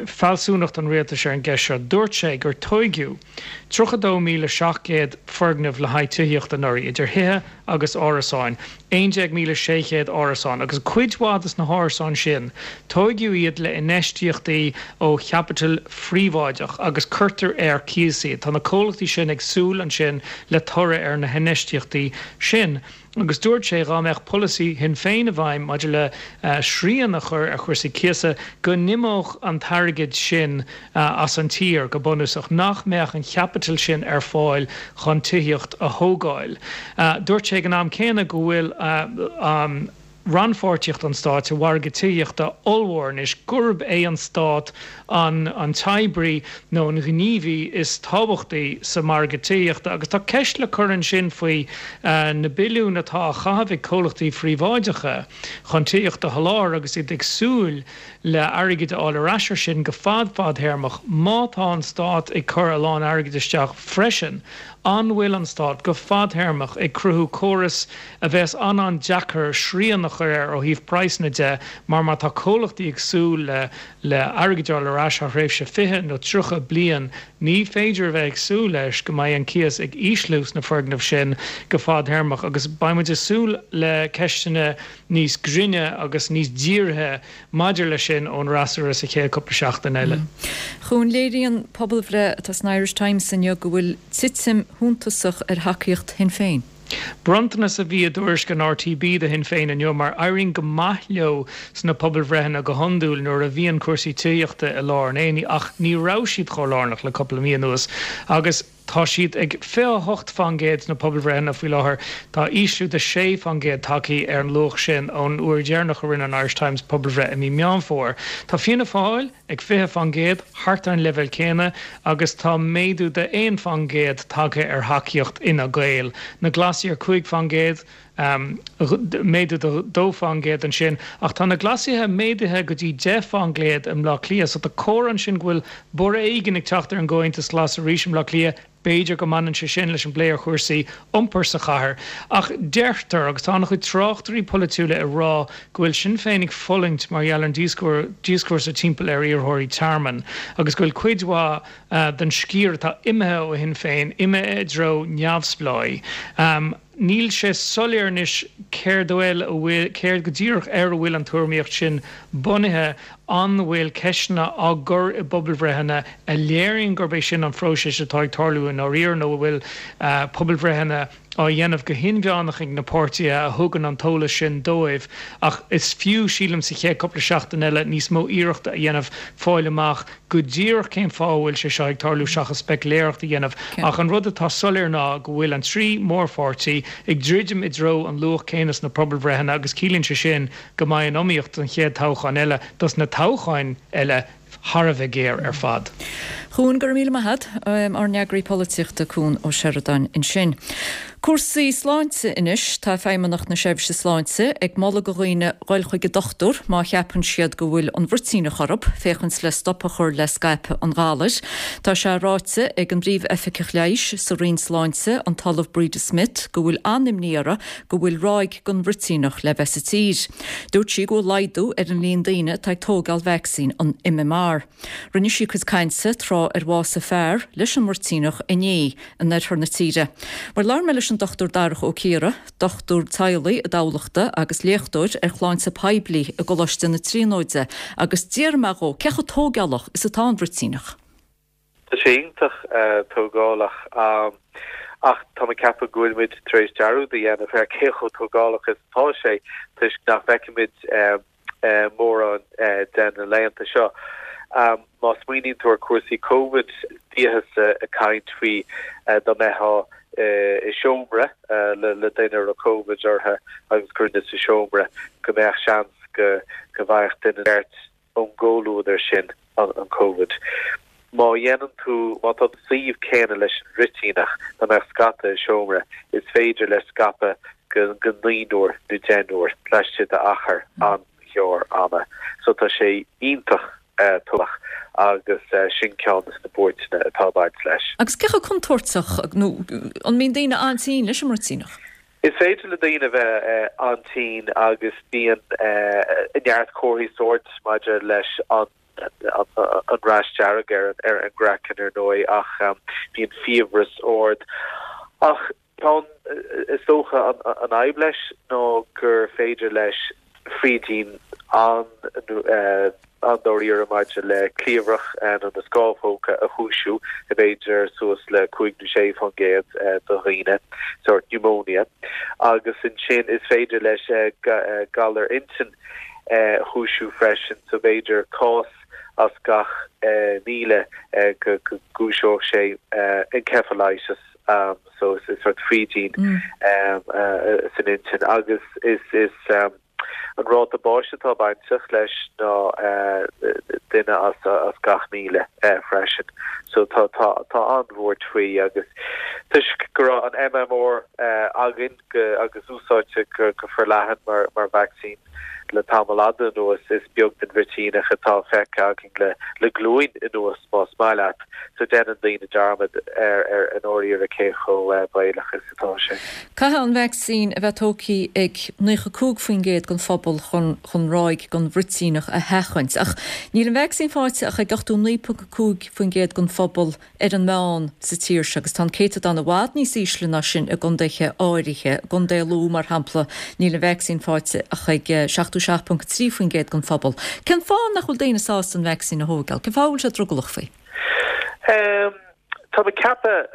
R: fealsúnacht an rialtais ar an gceist seo. Dúirt sé gur tóigeadh 32,700 foirgneamh le haghaidh tithíochta anuraidh, idir thithe agus árasáin, 11,600 árasán, agus cuid mhaith de na hárasáin sin, tóigeadh iad le infheistíochtaí ó chaipiteal phríobháideach agus cuirtear ar cíos iad. Tá na comhlachtaí sin ag súil ansin le toradh ar na hinfheistíochtaí sin. Agus dúirt sé dhá mbeadh polasaí Shinn Féin i bhfeidhm maidir le srian a chur ar chúrsaí cíosa, go n-imeodh an t-airgead sin as an tír, go bunúsach, nach mbeadh an chaipiteal sin ar fáil chun tithíocht a thógáil. Dúirt sé ag an am céanna go bhfuil an. rannpháirtíocht an stáit sa mhargadh tithíochta ollmhór anois, gurb é an stát an an t-oibrí nó an gníomhaí is tábhachtaí sa mhargadh tithíochta. Agus tá ceist le cur ansin faoi na billiúin atá á chaitheamh ag comhlachtaí phríobháideacha chun tithíocht a sholáthar agus iad ag súil le airgead a fháil ar ais ar sin go fad fadthéarmach. Má tá an stát ag cur a lán airgid isteach freisin, an bhfuil an stát, go fadthéarmach, ag cruthú córas a bheas an-an-deacair srian a chur air ó thaobh praghsanna de mar má tá comhlachtaí ag súil le le airgead a fháil ar ais thar thréimhse 20 nó 30 bliain ní féidir a bheith ag súil leis go mbeidh an cíos ag ísliú sna foirgnimh sin go fadthéarmach agus beidh muid ag súil le ceisteanna níos grinne agus níos dírithe maidir leis sin ón fhreasúra sa chéad cúpla seachtain eile.
A: Chuan, léiríonn pobalbhreith atá san Irish Times inniu go bhfuil titim shuntasach ar thacaíocht Shinn Féin.
R: Bronntanas a bhí i dtuairisc an RTB do Shinn Féin inniu mar éiríonn go maith leo sna pobalbhreitheanna go hiondúil nuair a bhíonn cúrsaí tithíochta i lár an aonaigh ach ní raibh siad chomh lárnach le cúpla mí anuas agus tá siad ag 28 fán gcéad sna pobalbhreitheanna faoi láthair. Tá ísliú de 6 fán gcéad tagtha ar an luach sin ón uair dheireanach a rinne an Irish Times pobalbhreith i mí Meán Fómhair. Tá Fianna Fáil ag 20 fán gcéad, thart ar an leibhéal céanna, agus tá méadú de 1 fán gcéad tagtha ar thacaíocht Fhine Gael. Na Glasaigh ar 5 fán gcéad, méadú de 2 fán gcéad ansin, ach tá na Glasaithe méadaithe go dtí 10 fán gcéad i mBleá Cliath, so tá comhartha ansin go bhfuil borradh éigin ag teacht ar an gComhaontas Glas arís i mBleá Cliath. B'fhéidir go mbaineann sé sin leis an bplé ar chúrsaí iompair sa chathair. Ach deirtear, agus tá an-chuid tráchtairí polaitiúla ag rá, go bhfuil Sinn Féin ag fulaingt mar gheall ar an díoscúrsa timpeall ar iarrthóirí tearmainn agus go bhfuil cuid mhaith den sciar atá imithe ó Shinn Féin imithe i dtreo neamhspleáigh. Níl sé soiléir anois céard a bhfuil, céard go díreach ar a bhfuil an tuairimíocht sin bunaithe. An bhfuil ceisteanna á gcur i bpobalbhreitheanna a léiríonn gurb é sin an phróiseas atá ag tarlú i ndáiríre nó an bhfuil pobalbhreitheanna á dhéanamh go hinmheánach ag na páirtithe a thugann an t-eolas sin dóibh? Ach is fiú, sílim, sa chéad cúpla seachtain eile níos mó iarrachta a dhéanamh fáil amach go díreach cén fáth a bhfuil sé seo ag tarlú seachas speiciléireacht a dhéanamh ach an rud atá soiléir ná go bhfuil an 3 mórpháirtí ag druidim i dtreo an luach céanna sna pobalbhreitheanna agus ciallaíonn sé sin go mbeidh an iomaíocht don chéad toghchán eile, dos na toghcháin eile, thar a bheith géar ar fad.
A: Chuan, go raibh míle maith agat. Ár n-eagraí polaitíochta Cuan Ó Seireadáin ansin. Cúrsaí sláinte anois. Tá Feidhmeannacht na Seirbhíse Sláinte ag moladh do dhaoine dhul chuig an dochtúir má cheapann siad go bhfuil an bhruitíneach orthu, féachaint le stop a chur le scaipeadh an ghalair. Tá sé ráite ag an bPríomh-Oifigeach Leighis sa Roinn Sláinte, an tOllamh Breda Smith, go bhfuil an-imní orthu go bhfuil ráig den bhruitíneach le bheith sa tír. Dúirt sí go bhfuil laghdú ar an líon daoine atá ag tóigeáil vacsaín an MMR. Rinne sí a cuid cainte tráth ar bhásaigh fear leis an mbruitíneach inné in oirthear na tíre. Bhuel labhair mé leis an Dr Darach Ó Ciardha, dochtúir teaghlaigh i dTamhlachta agus léachtóir ar shláinte poiblí i gColáiste na Tríonóide agus d'fhiafraigh mé dhó cé chomh tóigeálach is atá an bhruitíneach.
S: Tá sé iontach tógálach ach tá mé ag ceapadh go bhfuil muid tar éis dearúd a dhéanamh ar cé chomh tógálach is atá sé toisc nach bhfeicimid mórán de na laethanta seo. Má smaoiníonn tú ar cúrsaí Covid, bhíothas ag caint faoi dá mbeifeá i seomra le duine a raibh Covid orthu agus cuireadh duine sa seomra go mbeadh seans go bhfaigheadh duine beirt ón gcomhluadar sin an Covid. Má dhéanann tú, má tá tú sa suíomh céanna leis an bhruitíneach, dá mbeadh scata i seomra, is féidir leis scaipeadh go go naonúr nó deichniúr laistigh d'achar an-ghearr ama. So tá sé iontach tógálach agus sin ceann de na buairteanna atá ag baint leis.
A: Agus cé chomh contúirteach, nó an mbíonn daoine an-tinn leis an mbruitíneach?
S: Is féidir le daoine a bheith an-tinn agus bíonn neart comharthaí sóirt maidir leis an rash dearg ar an gcraiceann ar ndóigh ach bíonn fiabhras ard. Ach tá, is dócha, an fhadhb leis ná gur féidir leis frídín an. An-dáiríre maidir le cliabhrach nó na scámhóga a chúisiú i b'fhéidir suas le 5 nó 6% de dhaoine, sórt pneumonia, agus ansin is féidir leis galar intinn a chúisiú freisin, so b'fhéidir cás as gach 1,000 go gcúiseodh sé encephalitis, so is sórt frídín san intinn agus is is. An ráta báis atá bainteach leis ná duine as gach 1,000 freisin. So tá tá tá an-bhuairt faoi agus toisc go raibh an MMR againn go agus úsáidte go go forleathan mar mar vacsaín le tamall fhada anuas, is beag den bhruitíneach atá feicthe againn le le glúin anuas más maith leat. So déanann daoine dearmad ar ar i ndáiríre cé chomh baolach is atá sé.
A: Caithfidh an vacsaín a bheith tógtha ag 95% den phobal chun chun ráig den bhruitíneach a sheachaint. Ach níl an vacsaín faighte ach ag 89.5% den phobal ar an meán sa tír seo agus tá an céatadán i bhfad níos ísle ná sin i gcontaetha áirithe. I gContae Lú, mar shampla, níl an vacsaín faighte ach ag 77.3% den phobal. Cén fáth nach bhfuil daoine sásta an vacsaín a thógáil? Cén fáth a bhfuil siad drogallach faoi?
S: Tá mé ag ceapadh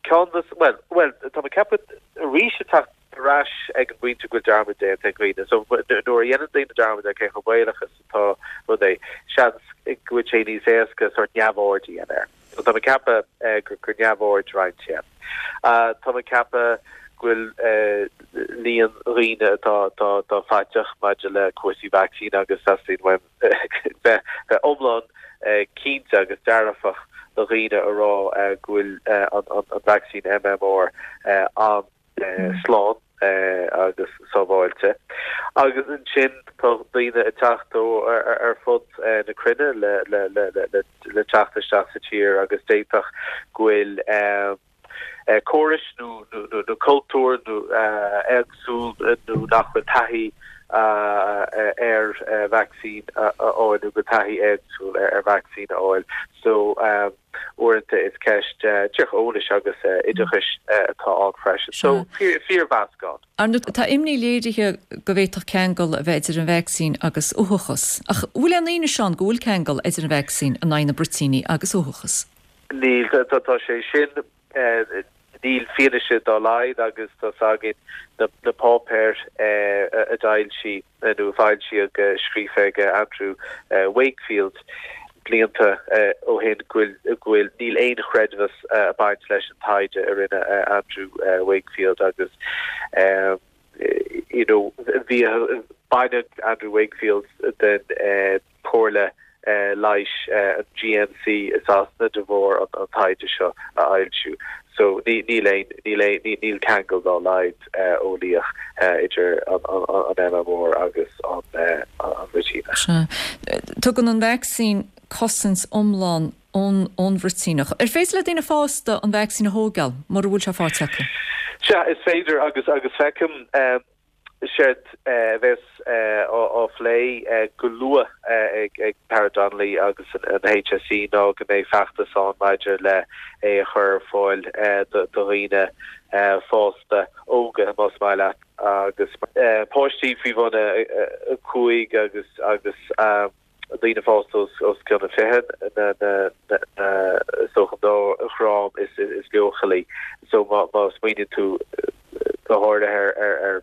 S: ceann de, bhuel, bhuel, tá mé ag ceapadh arís ag teacht ar ais ag an bpointe go bhfuil dearmad déanta ag dhaoine. So nuair a dhéanann daoine dearmad ar cé chomh baolach is atá rud é, seans go bhfuil sé níos éasca sórt neamhaird a dhéanamh air. So tá mé ag ceapadh gur neamhaird roinnt é. Tá mé ag ceapadh go bhfuil líon dhaoine atá atá atá faiteach maidir le cúrsaí vacsaín agus teastaíonn uaim bheith iomlán cinnte agus dearfach do dhaoine a rá go bhfuil an vacsaín MMR an-slán agus sábháilte. Agus ansin tá daoine ag teacht ó ar fud na cruinne le teacht isteach sa tír agus d'fhéadfadh go bhfuil córais nó nó cultúr nó éagsúil nó nach bhfuil taithí ar vacsaín a fháil nó go bhfuil taithí éagsúil ar vacsaín a fháil. So uaireanta is ceist díreach eolais agus oideachais atá ann freisin. So fíormheascán.
A: Ar ndóigh, tá imní léirithe go bhféadfadh ceangal a bheith idir an vacsaín agus uathachas. Ach an bhfuil aon fhianaise ann go bhfuil ceangal idir an vacsaín in aghaidh na bruitíní agus uathachas?
S: Níl, tá sé sin, níl fianaise dá laghad agus tá 's againn na páipéir a d'fhoilsigh nó a foilsíodh scríofa ag Andrew Wakefield blianta ó shin go bhfuil, níl aon chreidmheas ag baint leis an taighde a rinne Andrew Wakefield agus you know bhí, baineadh Andrew Wakefield den Chomhairle Leighis, an GMC i Sasana de bharr an taighde seo a fhoilsiú. So níl aon, níl aon, níl ceangal dá laghad eolaíoch idir an MMR agus an bhruitíneach.
A: Sea. Tugann an vacsaín cosaint iomlán ón bhruitíneach. Ar féidir le daoine fásta an vacsaín a thógáil mura bhfuil sé faighte acu?
S: Sea, is féidir agus agus feicim Séard a bheas á phlé go luath ag Tara Donnelly agus an HSE ná go mbeidh feachtas ann maidir le é a chur ar fáil do dhaoine fásta, óga más maith leat, agus páistí faoi bhun 5 agus agus. daoine fásta os cionn a 20, na is dócha an dá dhream is leochailí. So má smaoiníonn tú go háirithe ar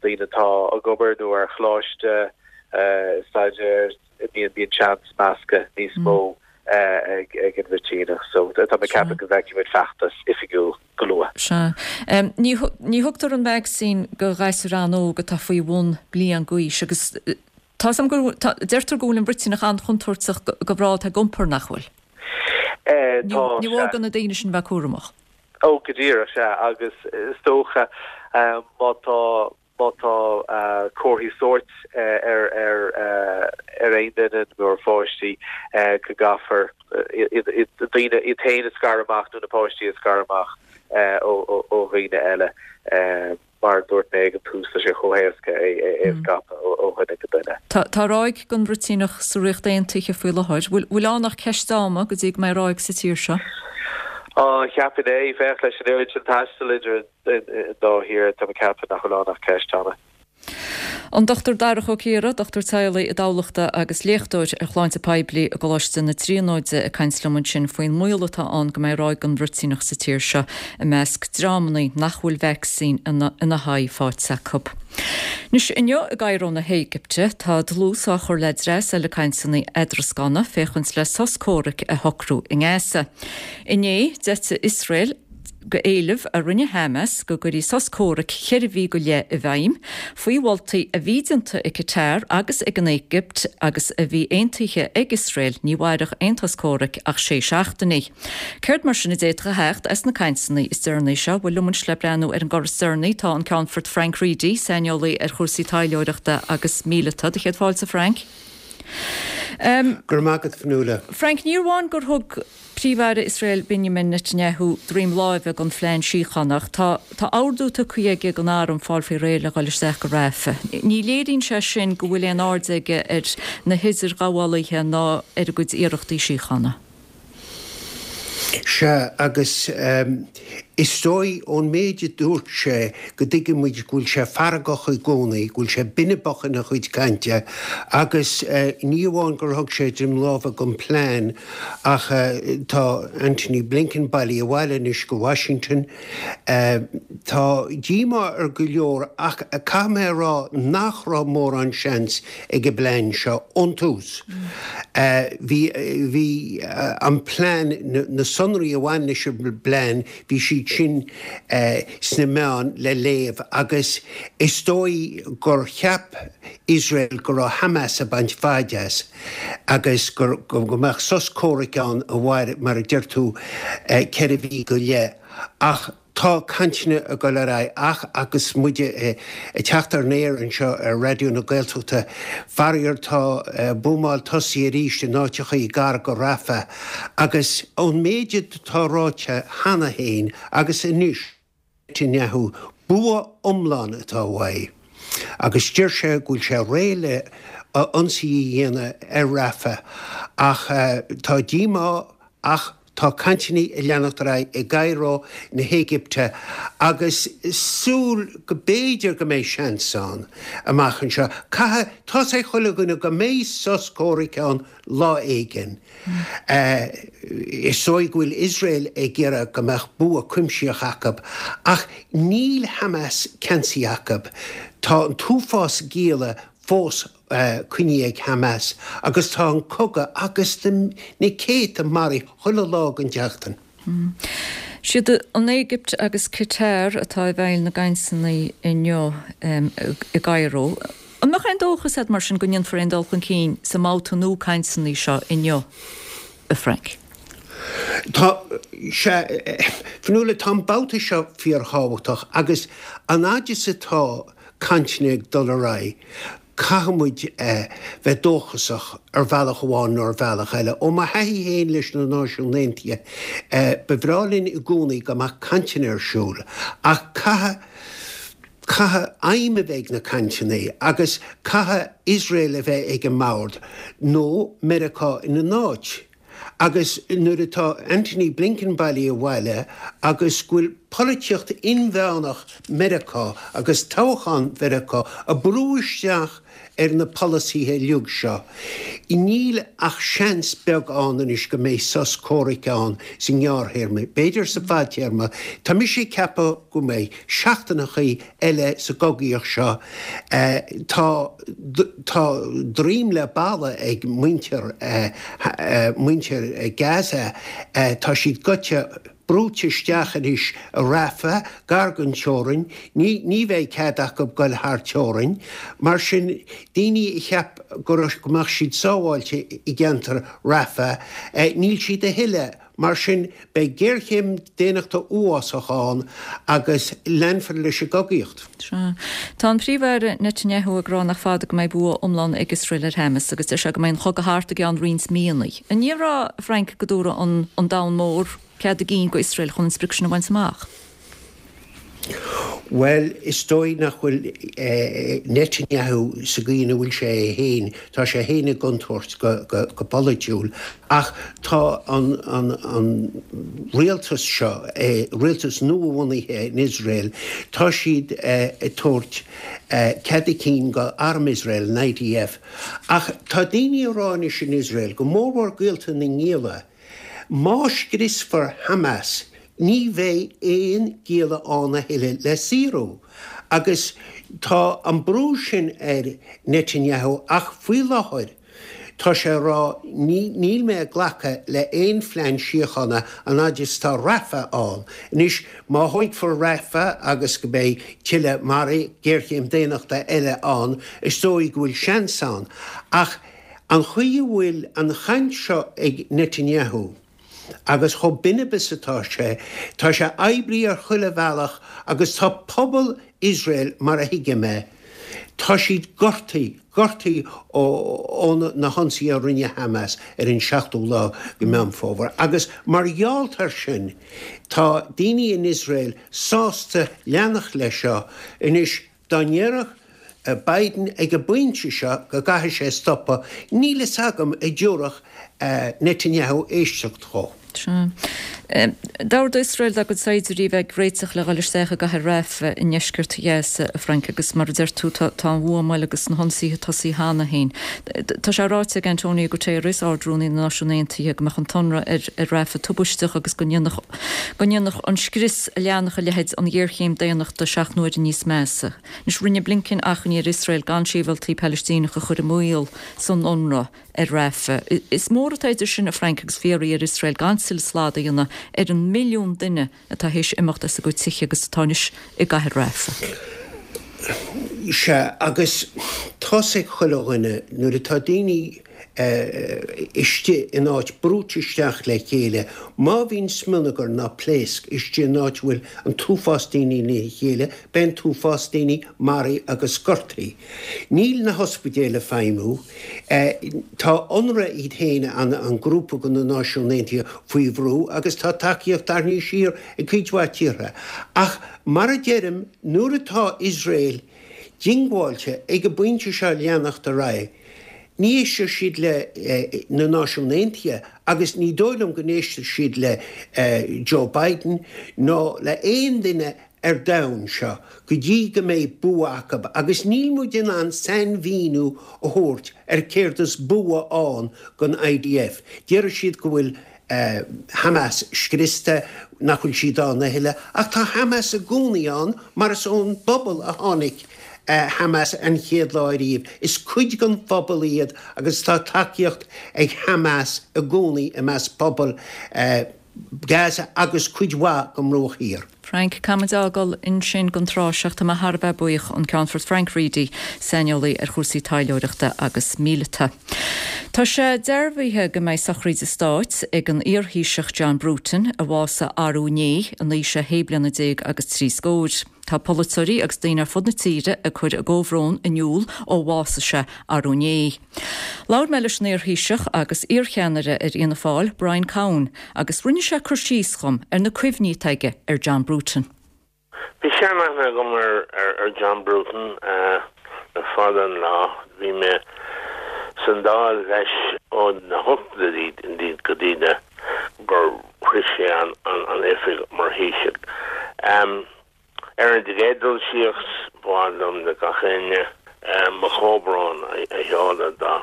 S: daoine atá ag obair nó ar choláiste, staidéar, bíonn seans meascadh níos mó ag an bhruitíneach. So tá mé ag ceapadh go bhfeicfidh muid feachtas oifigiúil go luath.
A: Sea. Ní thugtar an vacsaín do ghasúir an-óg atá faoi bhun bliain d'aois agus Tá 's agam go, tá, deirtear go bhfuil an bhruitíneach an-chontúirteach do mhná atá ag iompar, nach bhfuil?
S: Tá,
A: Ní mór do na daoine sin bheith cúramach.
S: Ó, go díreach, sea, agus is dócha má tá, má tá comharthaí sóirt ar, ar, ar aon duine nó ar pháistí go gcaithfear iad, daoine, iad féin a scaradh amach nó na páistí a scaradh amach ó, ó dhaoine eile. Mar a dúirt mé ag an tús, tá sé chomh héasca é a scaipeadh ó dhuine go duine.
A: Tá ráig den bhruitíneach sa Ríocht Aontaithe faoi láthair. Bhfuil ann ach ceist ama go dtí go mbeidh ráig sa tír seo?
S: Á, cheapfainn é. Féach, leis an oiread sin taistil idir an dá thír, tá mé ag ceapadh nach bhfuil ann ach ceist ama.
A: An Dr Darach Ó Ciardha, dochtúir teaghlaigh i dTamhlachta agus léachtóir ar shláinte poiblí i gColáiste na Tríonóide ag caint liom ansin faoin mbaol atá ann go mbeidh ráig den bhruitíneach sa tír seo i measc dreamanna nach bhfuil vacsaín ina haghaidh faighte acu. Anois, inniu i gCairo na hÉigipte, tá dlús á chur le dreas eile cainteanna eadrascána féachaint le sos comhraic a shocrú i nGaza. Inné, d'eitigh Iosrael go éileamh a rinne Hamas go gcuirfí sos comhraic cheithre mhí go leith i bhfeidhm, faoi mholtaí a bhí déanta ag Qatar agus ag an Éigipt agus a bhí aontaithe ag Iosrael, ní mhairfeadh aon sos comhraic ach sé seachtainí. Céard mar sin a d'fhéadfadh a theacht as na cainteanna is deireanaí seo? Bhuel, liom anois le breathnú ar an gcor is deireanaí tá an Ceannfort Frank Reidy, saineolaí ar chúrsaí taidhleoireachta agus míleata. Do chéad fáilte, Frank.
T: Go raibh maith agat, Fionnuala.
A: Frank, ní amháin gur thug Príomh-Aire Iosrael Benjamin Netanyahu droim láimhe don phlean síochána ach tá tá ordú tugtha aige don arm fáil faoi réir le dhul isteach go Rafah. Ní léiríonn sé sin go bhfuil aon aird aige ar na hidirghabhálaithe ná ar a gcuid iarrachtaí síochána.
T: Sea, agus is dóigh ón méid a dúirt sé go dtuigeann muid go bhfuil sé feargach i gcónaí, go bhfuil sé binibeach ina chuid cainte agus ní amháin gur thug sé droim láimhe don phlean ach tá Antony Blinken bailithe abhaile anois go Washington. Tá díomá ar go leor ach caithfidh mé a rá nach raibh mórán seans ag an bplean seo ón tús. Bhí, bhí an plean, na sonraí a bhain leis an bplean, bhí siad sin sna meáin le léamh agus is dóigh gur cheap Iosrael go raibh Hamas ag baint faid as agus go, go mbeadh sos comhraic ann a mhair, mar a deir tú, 4 mhí go leith. Ach Tá cainteanna ag dul ar aghaidh ach agus muid ag teacht ar an aer anseo ar Raidió na Gaeltachta, faraor tá buamáil tosaithe arís in áiteachaí gar go Rafah agus ón méid atá ráite cheana féin agus anois ag Netanyahu, bua iomlán atá uaidh agus deir sé go bhfuil sé réidh le ionsaí a dhéanamh ar Rafah ach tá díomá ach Tá cainteanna ag leanacht ar aghaidh i gCairo na hÉigipte agus súil go b'fhéidir go mbeidh seans ann amach anseo. Caithfidh, tá's ag chuile dhuine go mbeidh sos comhraic ann lá éigin. Is dóigh go bhfuil Iosrael ag iarraidh go mbeadh bua cuimsitheach acu ach níl Hamas ceansaithe acu. Tá an t-uafás gialla fós coinnithe ag Hamas agus tá an cogadh agus na céadta maraithe chuile lá den tseachtain.
A: Siad an Éigipt agus Qatar atá i bhfeighil na gcainteanna inniu i gCairo. An mbeadh aon dóchas agat mar sin go ndéanfar aon dul chun cinn sa mbabhta nua cainteanna seo inniu, a Frank?
T: Tá, sea, Fionnuala, tá an babhta seo fíorthábhachtach agus an fhaid is atá cainteanna ag dul ar aghaidh, caithfidh muid bheith dóchasach ar bhealach amháin nó ar bhealach eile. Ó mo thaithí féin leis na Náisiúin Aontaithe, ba bhreá linn i gcónaí go mbeadh cainteanna ar siúl, ach caithfidh, caithfidh aidhm a bheith ag na cainteanna agus caithfidh Iosrael a bheith ag an mbord, nó Meiriceá ina n-áit. Agus nuair atá Antony Blinken bailithe abhaile agus go bhfuil polaitíocht inmheánach Mheiriceá agus toghchán Mheiriceá ag brú isteach ar na polasaithe uilig seo, níl ach seans beag ann anois go mbeidh sos comhraic ann sa ngearrthéarma. B'fhéidir sa bhfadtéarma. Tá mise ag ceapadh go mbeidh seachtaineachaí eile sa gcogaíocht seo. Tá tá droim le balla ag muintir muintir Gaza. Tá siad goite, brúite isteach anois i Rafah, gar don teorainn. Ní ní bheidh cead acu goil thar teorainn. Mar sin, daoine a cheap go raibh go mbeadh siad sábháilte i gceantar Rafah, níl siad a thuilleadh. Mar sin, beidh géarchéim daonnachta uafásach ann agus leanfar leis an gcogaíocht.
A: Sea. Tá an Príomh-Aire Netanyahu ag rá nach fada go mbeidh bua iomlán ag Iosrael ar Hamas agus deir sé go mbeidh an chogadh thart i gceann roinnt míonna. An ndéarfá, a Frank, go dtabharfadh an domhan mór cead a gcinn go Iosrael chun an sprioc sin a bhaint amach?
T: Bhuel, is dóigh nach bhfuil Netanyahu sa gcaoi ina bhfuil sé é féin, tá sé féin i gcontúirt go polaitiúil, ach tá an rialtas seo, rialtas nua-bhunaithe in Iosrael, tá siad ag tabhairt cead a cinn go arm Iosrael, an IDF. Ach tá daoine ag rá anois in Iosrael, go mórmhór gaolta na ngialla, má scriosfar Hamas, Ní bheidh aon gialla ann a thuilleadh le saorú agus tá an brú sin ar Netanyahu ach faoi láthair tá sé ag rá níl mé ag glacadh le aon phlean síochána an fhaid is tá Rafah ann. Anois má thógfar Rafah agus go mbeidh tuilleadh maraithe, géarchéim daonnachta eile ann, is dóigh go bhfuil seans ann. Ach an chaoi a bhfuil an chaint seo ag Netanyahu, Agus chomh binib is atá sé, tá sé oibrithe ar chuile bhealach agus tá pobal Iosrael, mar a thuigim é, tá siad gortaithe, gortaithe ó na hionsaithe a rinne Hamas ar an seachtú lá de Meán Fómhair. Agus mar gheall air sin, tá daoine in Iosrael sásta leanacht leis seo. Anois, Dá ndéarfadh Biden ag an bpointe seo go gcaithfidh sé stopadh, níl fhios agam an dtabharfadh Netanyahu éisteacht dhó.
A: Sea. D'ordaigh Iosrael dá gcuid saighdiúirí a bheith ag réiteach le dhul isteach i gcathair Rafah i ndeisceart Ghaza, a Frank, agus mar a deir tú, tá an bhuamáil agus na hionsaithe tosaithe cheana féin. Tá sé ráite ag Antonio Guterres, Ard-Rúnaí na Náisiún Aontaithe, go mbeadh an t-ionradh ar Rafah tubaisteach agus go ndéanfadh go ndéanfadh an scrios a leanfadh a leithéid an ghéarchéim daonnachta seacht n-uaire níos measa. Anois, rinne Blinken achainí ar Iosrael gan sibhialtaigh Palaistíneacha a chur i mbaol san ionradh ar Rafah. Is mór atá idir sin, a Frank, agus fiafraí ar Iosrael gan tuilleadh slad a dhéanamh ar an milliún duine atá théis imeacht as a gcuid tithe agus atá anois i gcathair Rafah.
T: Sea, agus tá's ag chuile dhuine, nuair atá daoine istigh in áit brúite isteach le chéile. Má bhíonn smionagar ná pléasc istigh in áit a bhfuil an t-uafás daoine ina chéile, beidh an t-uafás daoine maraithe agus gortaithe. Níl na hospidéil ag feidhmiú. Tá Unrwa iad féin, an grúpa de na Náisiúin Aontaithe, faoi bhrú agus tá tacaíocht tarraingthe siar ag cuid mhaith tíortha. Ach mar a deirim, nuair atá Iosrael diongbháilte ag an bpointe seo leanacht ar aghaidh, Ní éistfidh siad le na Náisiúin Aontaithe agus ní dóigh liom go n-éistfidh siad le Joe Biden ná le aon duine ar domhan seo go dtí go mbeidh bua acu agus níl muid in ann sainmhíniú a thabhairt ar céard is bua ann don IDF. Déarfaidh siad go bhfuil Hamas scriosta, nach bhfuil siad ann a thuilleadh ach tá Hamas i gcónaí ann mar is ón bpobal a tháinig Hamas an chéad lá ariamh. Is cuid den phobal iad agus tá tacaíocht ag Hamas i gcónaí i measc pobal Gaza agus cuid mhaith den mBruach Thiar.
A: Frank, Caithfimid a fhágáil ansin don tráth seo. Tá mé thar a bheith buíoch, an Ceannfort Frank Reidy, saineolaí ar chúrsaí taidhleoireachta agus míleata. Tá sé dearbhaithe go mbeidh sochraíd stáit ag an iar-Thaoiseach John Bruton, a bhásaigh arú inné in aois a shé bliana déag agus trí scóir. Tá polaiteoirí agus daoine ar fud na tíre ag cur a gcomhbhrón in iúl ó bhásaigh sé arú inné. Labhair mé leis an iar-Thaoiseach agus iar-cheannaire ar Fhianna Fáil, Brian Cowen, agus rinne sé cur síos dhom ar na cuimhní atá aige ar John Bruton.
U: Bhí seanaithne agam ar John Bruton le fada an lá. Bhí mé san Dáil leis ó na hochtóidí go dtí gur shroich sé an oifig mar Thaoiseach. Ar an gcéad dul síos, ba mhaith liom le gach éinne mo chomhbhrón a sheoladh dá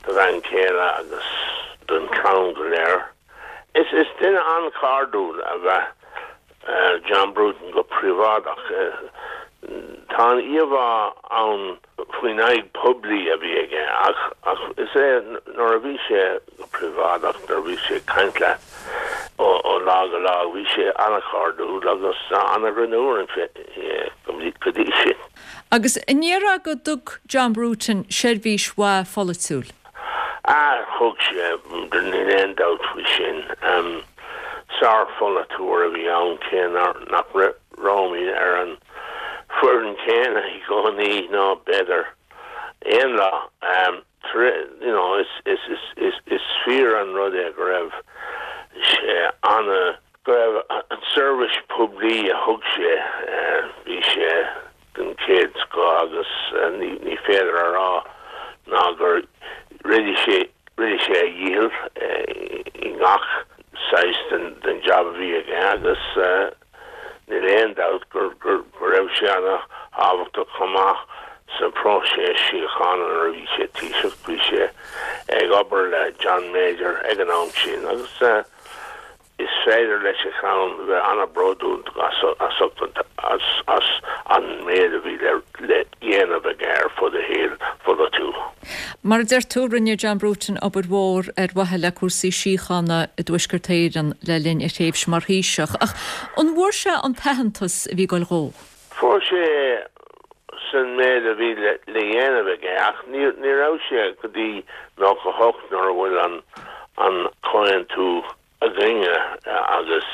U: bhean chéile agus don chlann go léir. Is duine an-chairdiúil ab ea John Bruton go príobháideach. Tá an íomhá ann faoin aghaidh poiblí a bhí aige ach ach is é nuair a bhí sé go príobháideach, nuair a bhí sé ag caint leat ó lá go lá, bhí sé an-chairdiúil agus an-ghreannmhar go dtí sin.
A: Agus an ndéarfá go dtug John Bruton seirbhís mhaith pholaitiúil?
U: Ah, thug sé, níl aon dabht faoi sin. Sár-pholaiteoir a bhí ann cé nach rabhamar ar an foireann chéanna i gcónaí ná b'fhéidir aon lá. You know, is fíor an rud é go raibh sé ana. Go raibh an seirbhís poiblí a thug sé, bhí sé den chéad scoth agus ní féidir a rá ná gur rinne sé rinne sé a dhícheall i ngach saghas den jab a bhí aige agus níl aon dabht go raibh sé ana thábhachtach chomh maith sa phróiseas síochána nuair a bhí sé Taoiseach. Bhí sé ag obair le John Major ag an am sin agus Is féidir leis a chlann bheith an-bhródúil as an méid a bhí le dhéanamh aige ar fud a shaoil pholaitiúil.
A: Mar a deir tú, rinne John Bruton obair mhór ar mhaithe le cúrsaí síochána i dTuaisceart Éireann le linn a thréimhse mar Thaoiseach. Ach an bhfuair sé an t-aitheantas a bhí ag goil dhó?
U: Fuair sé san méid a bhí le dhéanamh aige ach ní raibh sé go dtí 98 nuair a bhfuil an comhaontú againne agus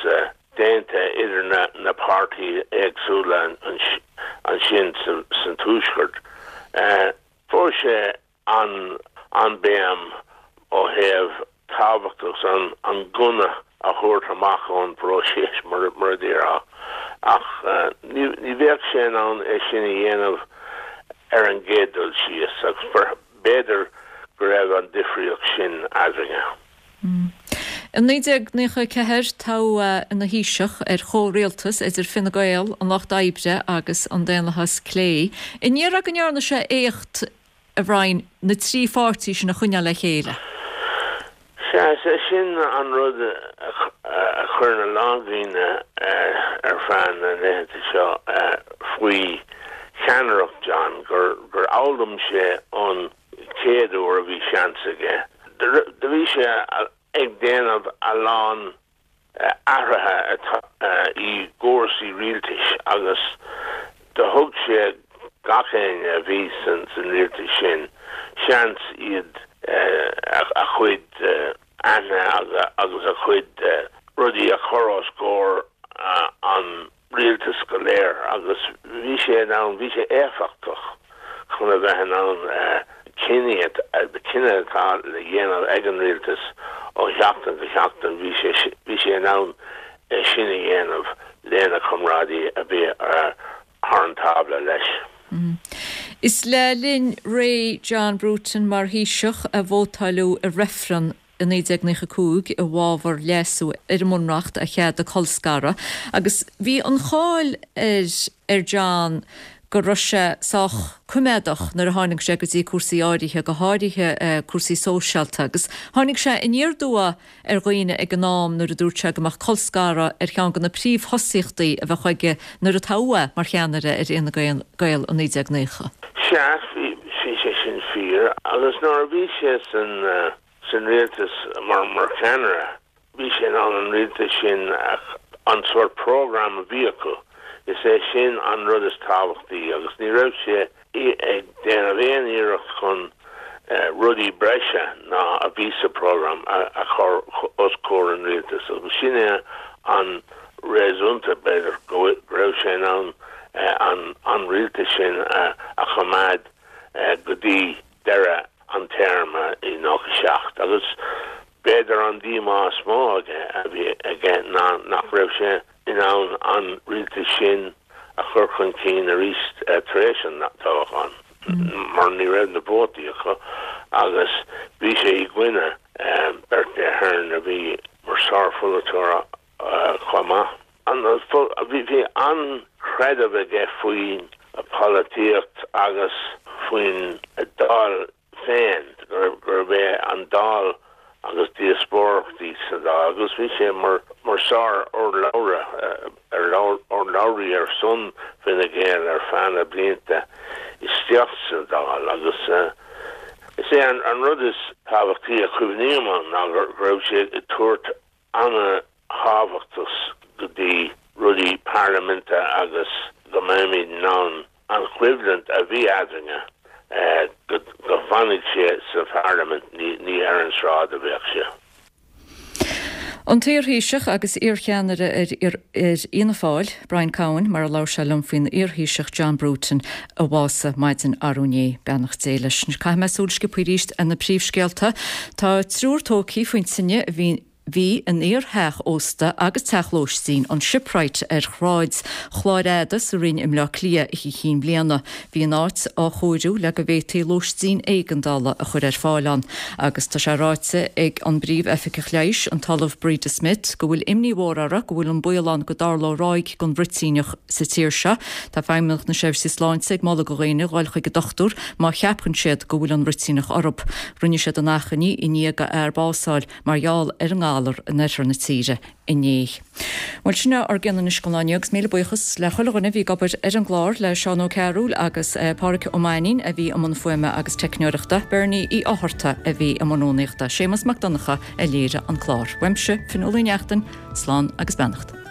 U: déanta idir na páirtithe éagsúla ansin san Tuaisceart. Fuair sé an béim ó thaobh tábhachtach an gunna a thabhairt amach ón bpróiseas, mar a déarfá, ach ní bheadh sé in ann é sin a dhéanamh ar an gcéad dul síos agus b'fhéidir go raibh an difríocht sin eadrainne.
A: I 1994, toghadh é ina Thaoiseach ar chomhrialtas idir Fine Gael, an Lucht Oibre agus an Daonlathas Clé. An ndéarfá go ndearna sé éacht, a Bhriain, na trí pháirtí sin a choinneáil le chéile?
U: Sea, is é sin an rud a chuireann a lán daoine ar feadh na laethanta seo faoi cheannaireacht John, gur fhoghlaim sé ón chéad uair a bhí seans aige. Do bhí sé ag déanamh a lán athruithe i gcúrsaí rialtais agus do thug sé gach éinne a bhí san rialtas sin seans iad a chuid aithne agus a chuid rudaí a chur os comhair an rialtas go léir agus bhí sé in ann, bhí sé éifeachtach chun a bheith in ann cinní, cinneadh atá le dhéanamh ag an rialtas ó sheachtain go seachtain, bhí sé, bhí sé in ann é sin a dhéanamh lena chomrádaí a bhí thar an tábla leis.
A: Is le linn ré John Bruton mar Thaoiseach a vótáileadh i reifreann i 1995 i bhfabhar leasú ar an mBunreacht a cheadaigh colscaradh agus bhí an cháil ar ar John go raibh sé sách coimeádach nuair a tháinig sé go dtí cúrsaí áirithe, go háirithe cúrsaí sóisialta agus tháinig sé aniar aduaidh ar dhaoine ag an am nuair a dúirt sé go mbeadh colscaradh ar cheann de na príomhthosaíochtaí a bheadh aige nuair a toghadh é mar cheannaire ar Fhine Gael i 1990.
U: Sea, bhí sé sin fíor agus nuair a bhí sé san san rialtas mar mar cheannaire, bhí sé in ann an rialtas sin an sórt program a bhí acu, is é sin an rud is tábhachtaí agus ní raibh sé ag déanamh aon iarracht chun rudaí breise ná a bhí sa program a chur os comhair an rialtais agus sin é an réasúnta b'fhéidir go raibh sé in ann an an rialtas sin a choimeád go dtí deireadh an téarma i 97 agus b'fhéidir an díomá is mó aige a bhí aige ná nach raibh sé in ann an rialtas sin a chur chun cinn arís tar éis an toghcháin mar ní raibh na vótaí acu agus bhí sé i gcoinne Bertie Ahern a bhí mar sárpholaiteoir chomh maith. Bhí an-chreideamh aige faoin pholaitíocht agus faoin Dáil féin, gurb é an Dáil agus díospóireachtaí sa Dáil agus bhí sé mar sár-urlabhra, urlabhraí ar son Fine Gael ar feadh na blianta isteach sa Dáil agus is é an rud is tábhachtaí a chuimhním ann ná go raibh sé ag tabhairt ana-thábhachtas go dtí rudaí parlaiminte agus go mbeimid in ann an choimhlint a bhí eadrainne, go bhfanfaidh sé sa pharlaimint, ní ar an sráid a bheadh sé.
A: An t-iarThaoiseach agus iarcheannaire ar Fhianna Fáil, Brian Cowen, mar a labhair sé liom faoin iarThaoiseach John Bruton a bhásaigh maidin arú inné. Beannacht Dé leis. Caithfidh mé súil sciobtha arís ar na príomhscéalta. Tá triúr tógtha faoin tine a bhí. Bhí in iar-theach ósta agus teach lóistín, an Shipwright ar Shráid Chláir Fhada sa Rinn i mBleá Cliath Oíche Chinn Bliana. Bhí an áit á chóiriú le go bhféadfaí lóistín éigeandála a chur ar fáil ann agus tá sé ráite ag an bPríomh-Oifigeach Leighis, an tOllamh Breda Smith, go bhfuil imní mhór orthu go bhfuil an baol ann go dtarlódh ráig den bhruitíneach sa tír seo. Tá Feidhmeannacht na Seirbhísí Sláinte ag moladh do dhaoine dhul chuig an dochtúir má cheapann siad go bhfuil an bhruitíneach orthu. Rinne siad an achainí i ndiaidh do fhear bás a fháil mar gheall ar an ngalar in oirthear na tíre inné. Bhuel, sin é ár gcion anois don lá inniu agus míle buíochas le chuile dhuine a bhí ag obair ar an gclár, le Seán Ó Cearúil agus Pádhraic Ó Mainnín a bhí i mbun fuaime agus teicneoireachta, Bernie Uí Fhátharta a bhí i mbun rúnaíochta, Séamus Mac Donncha a léirigh an clár. Uaimse, Fionnuala Uí Neachtain, slán agus beannacht.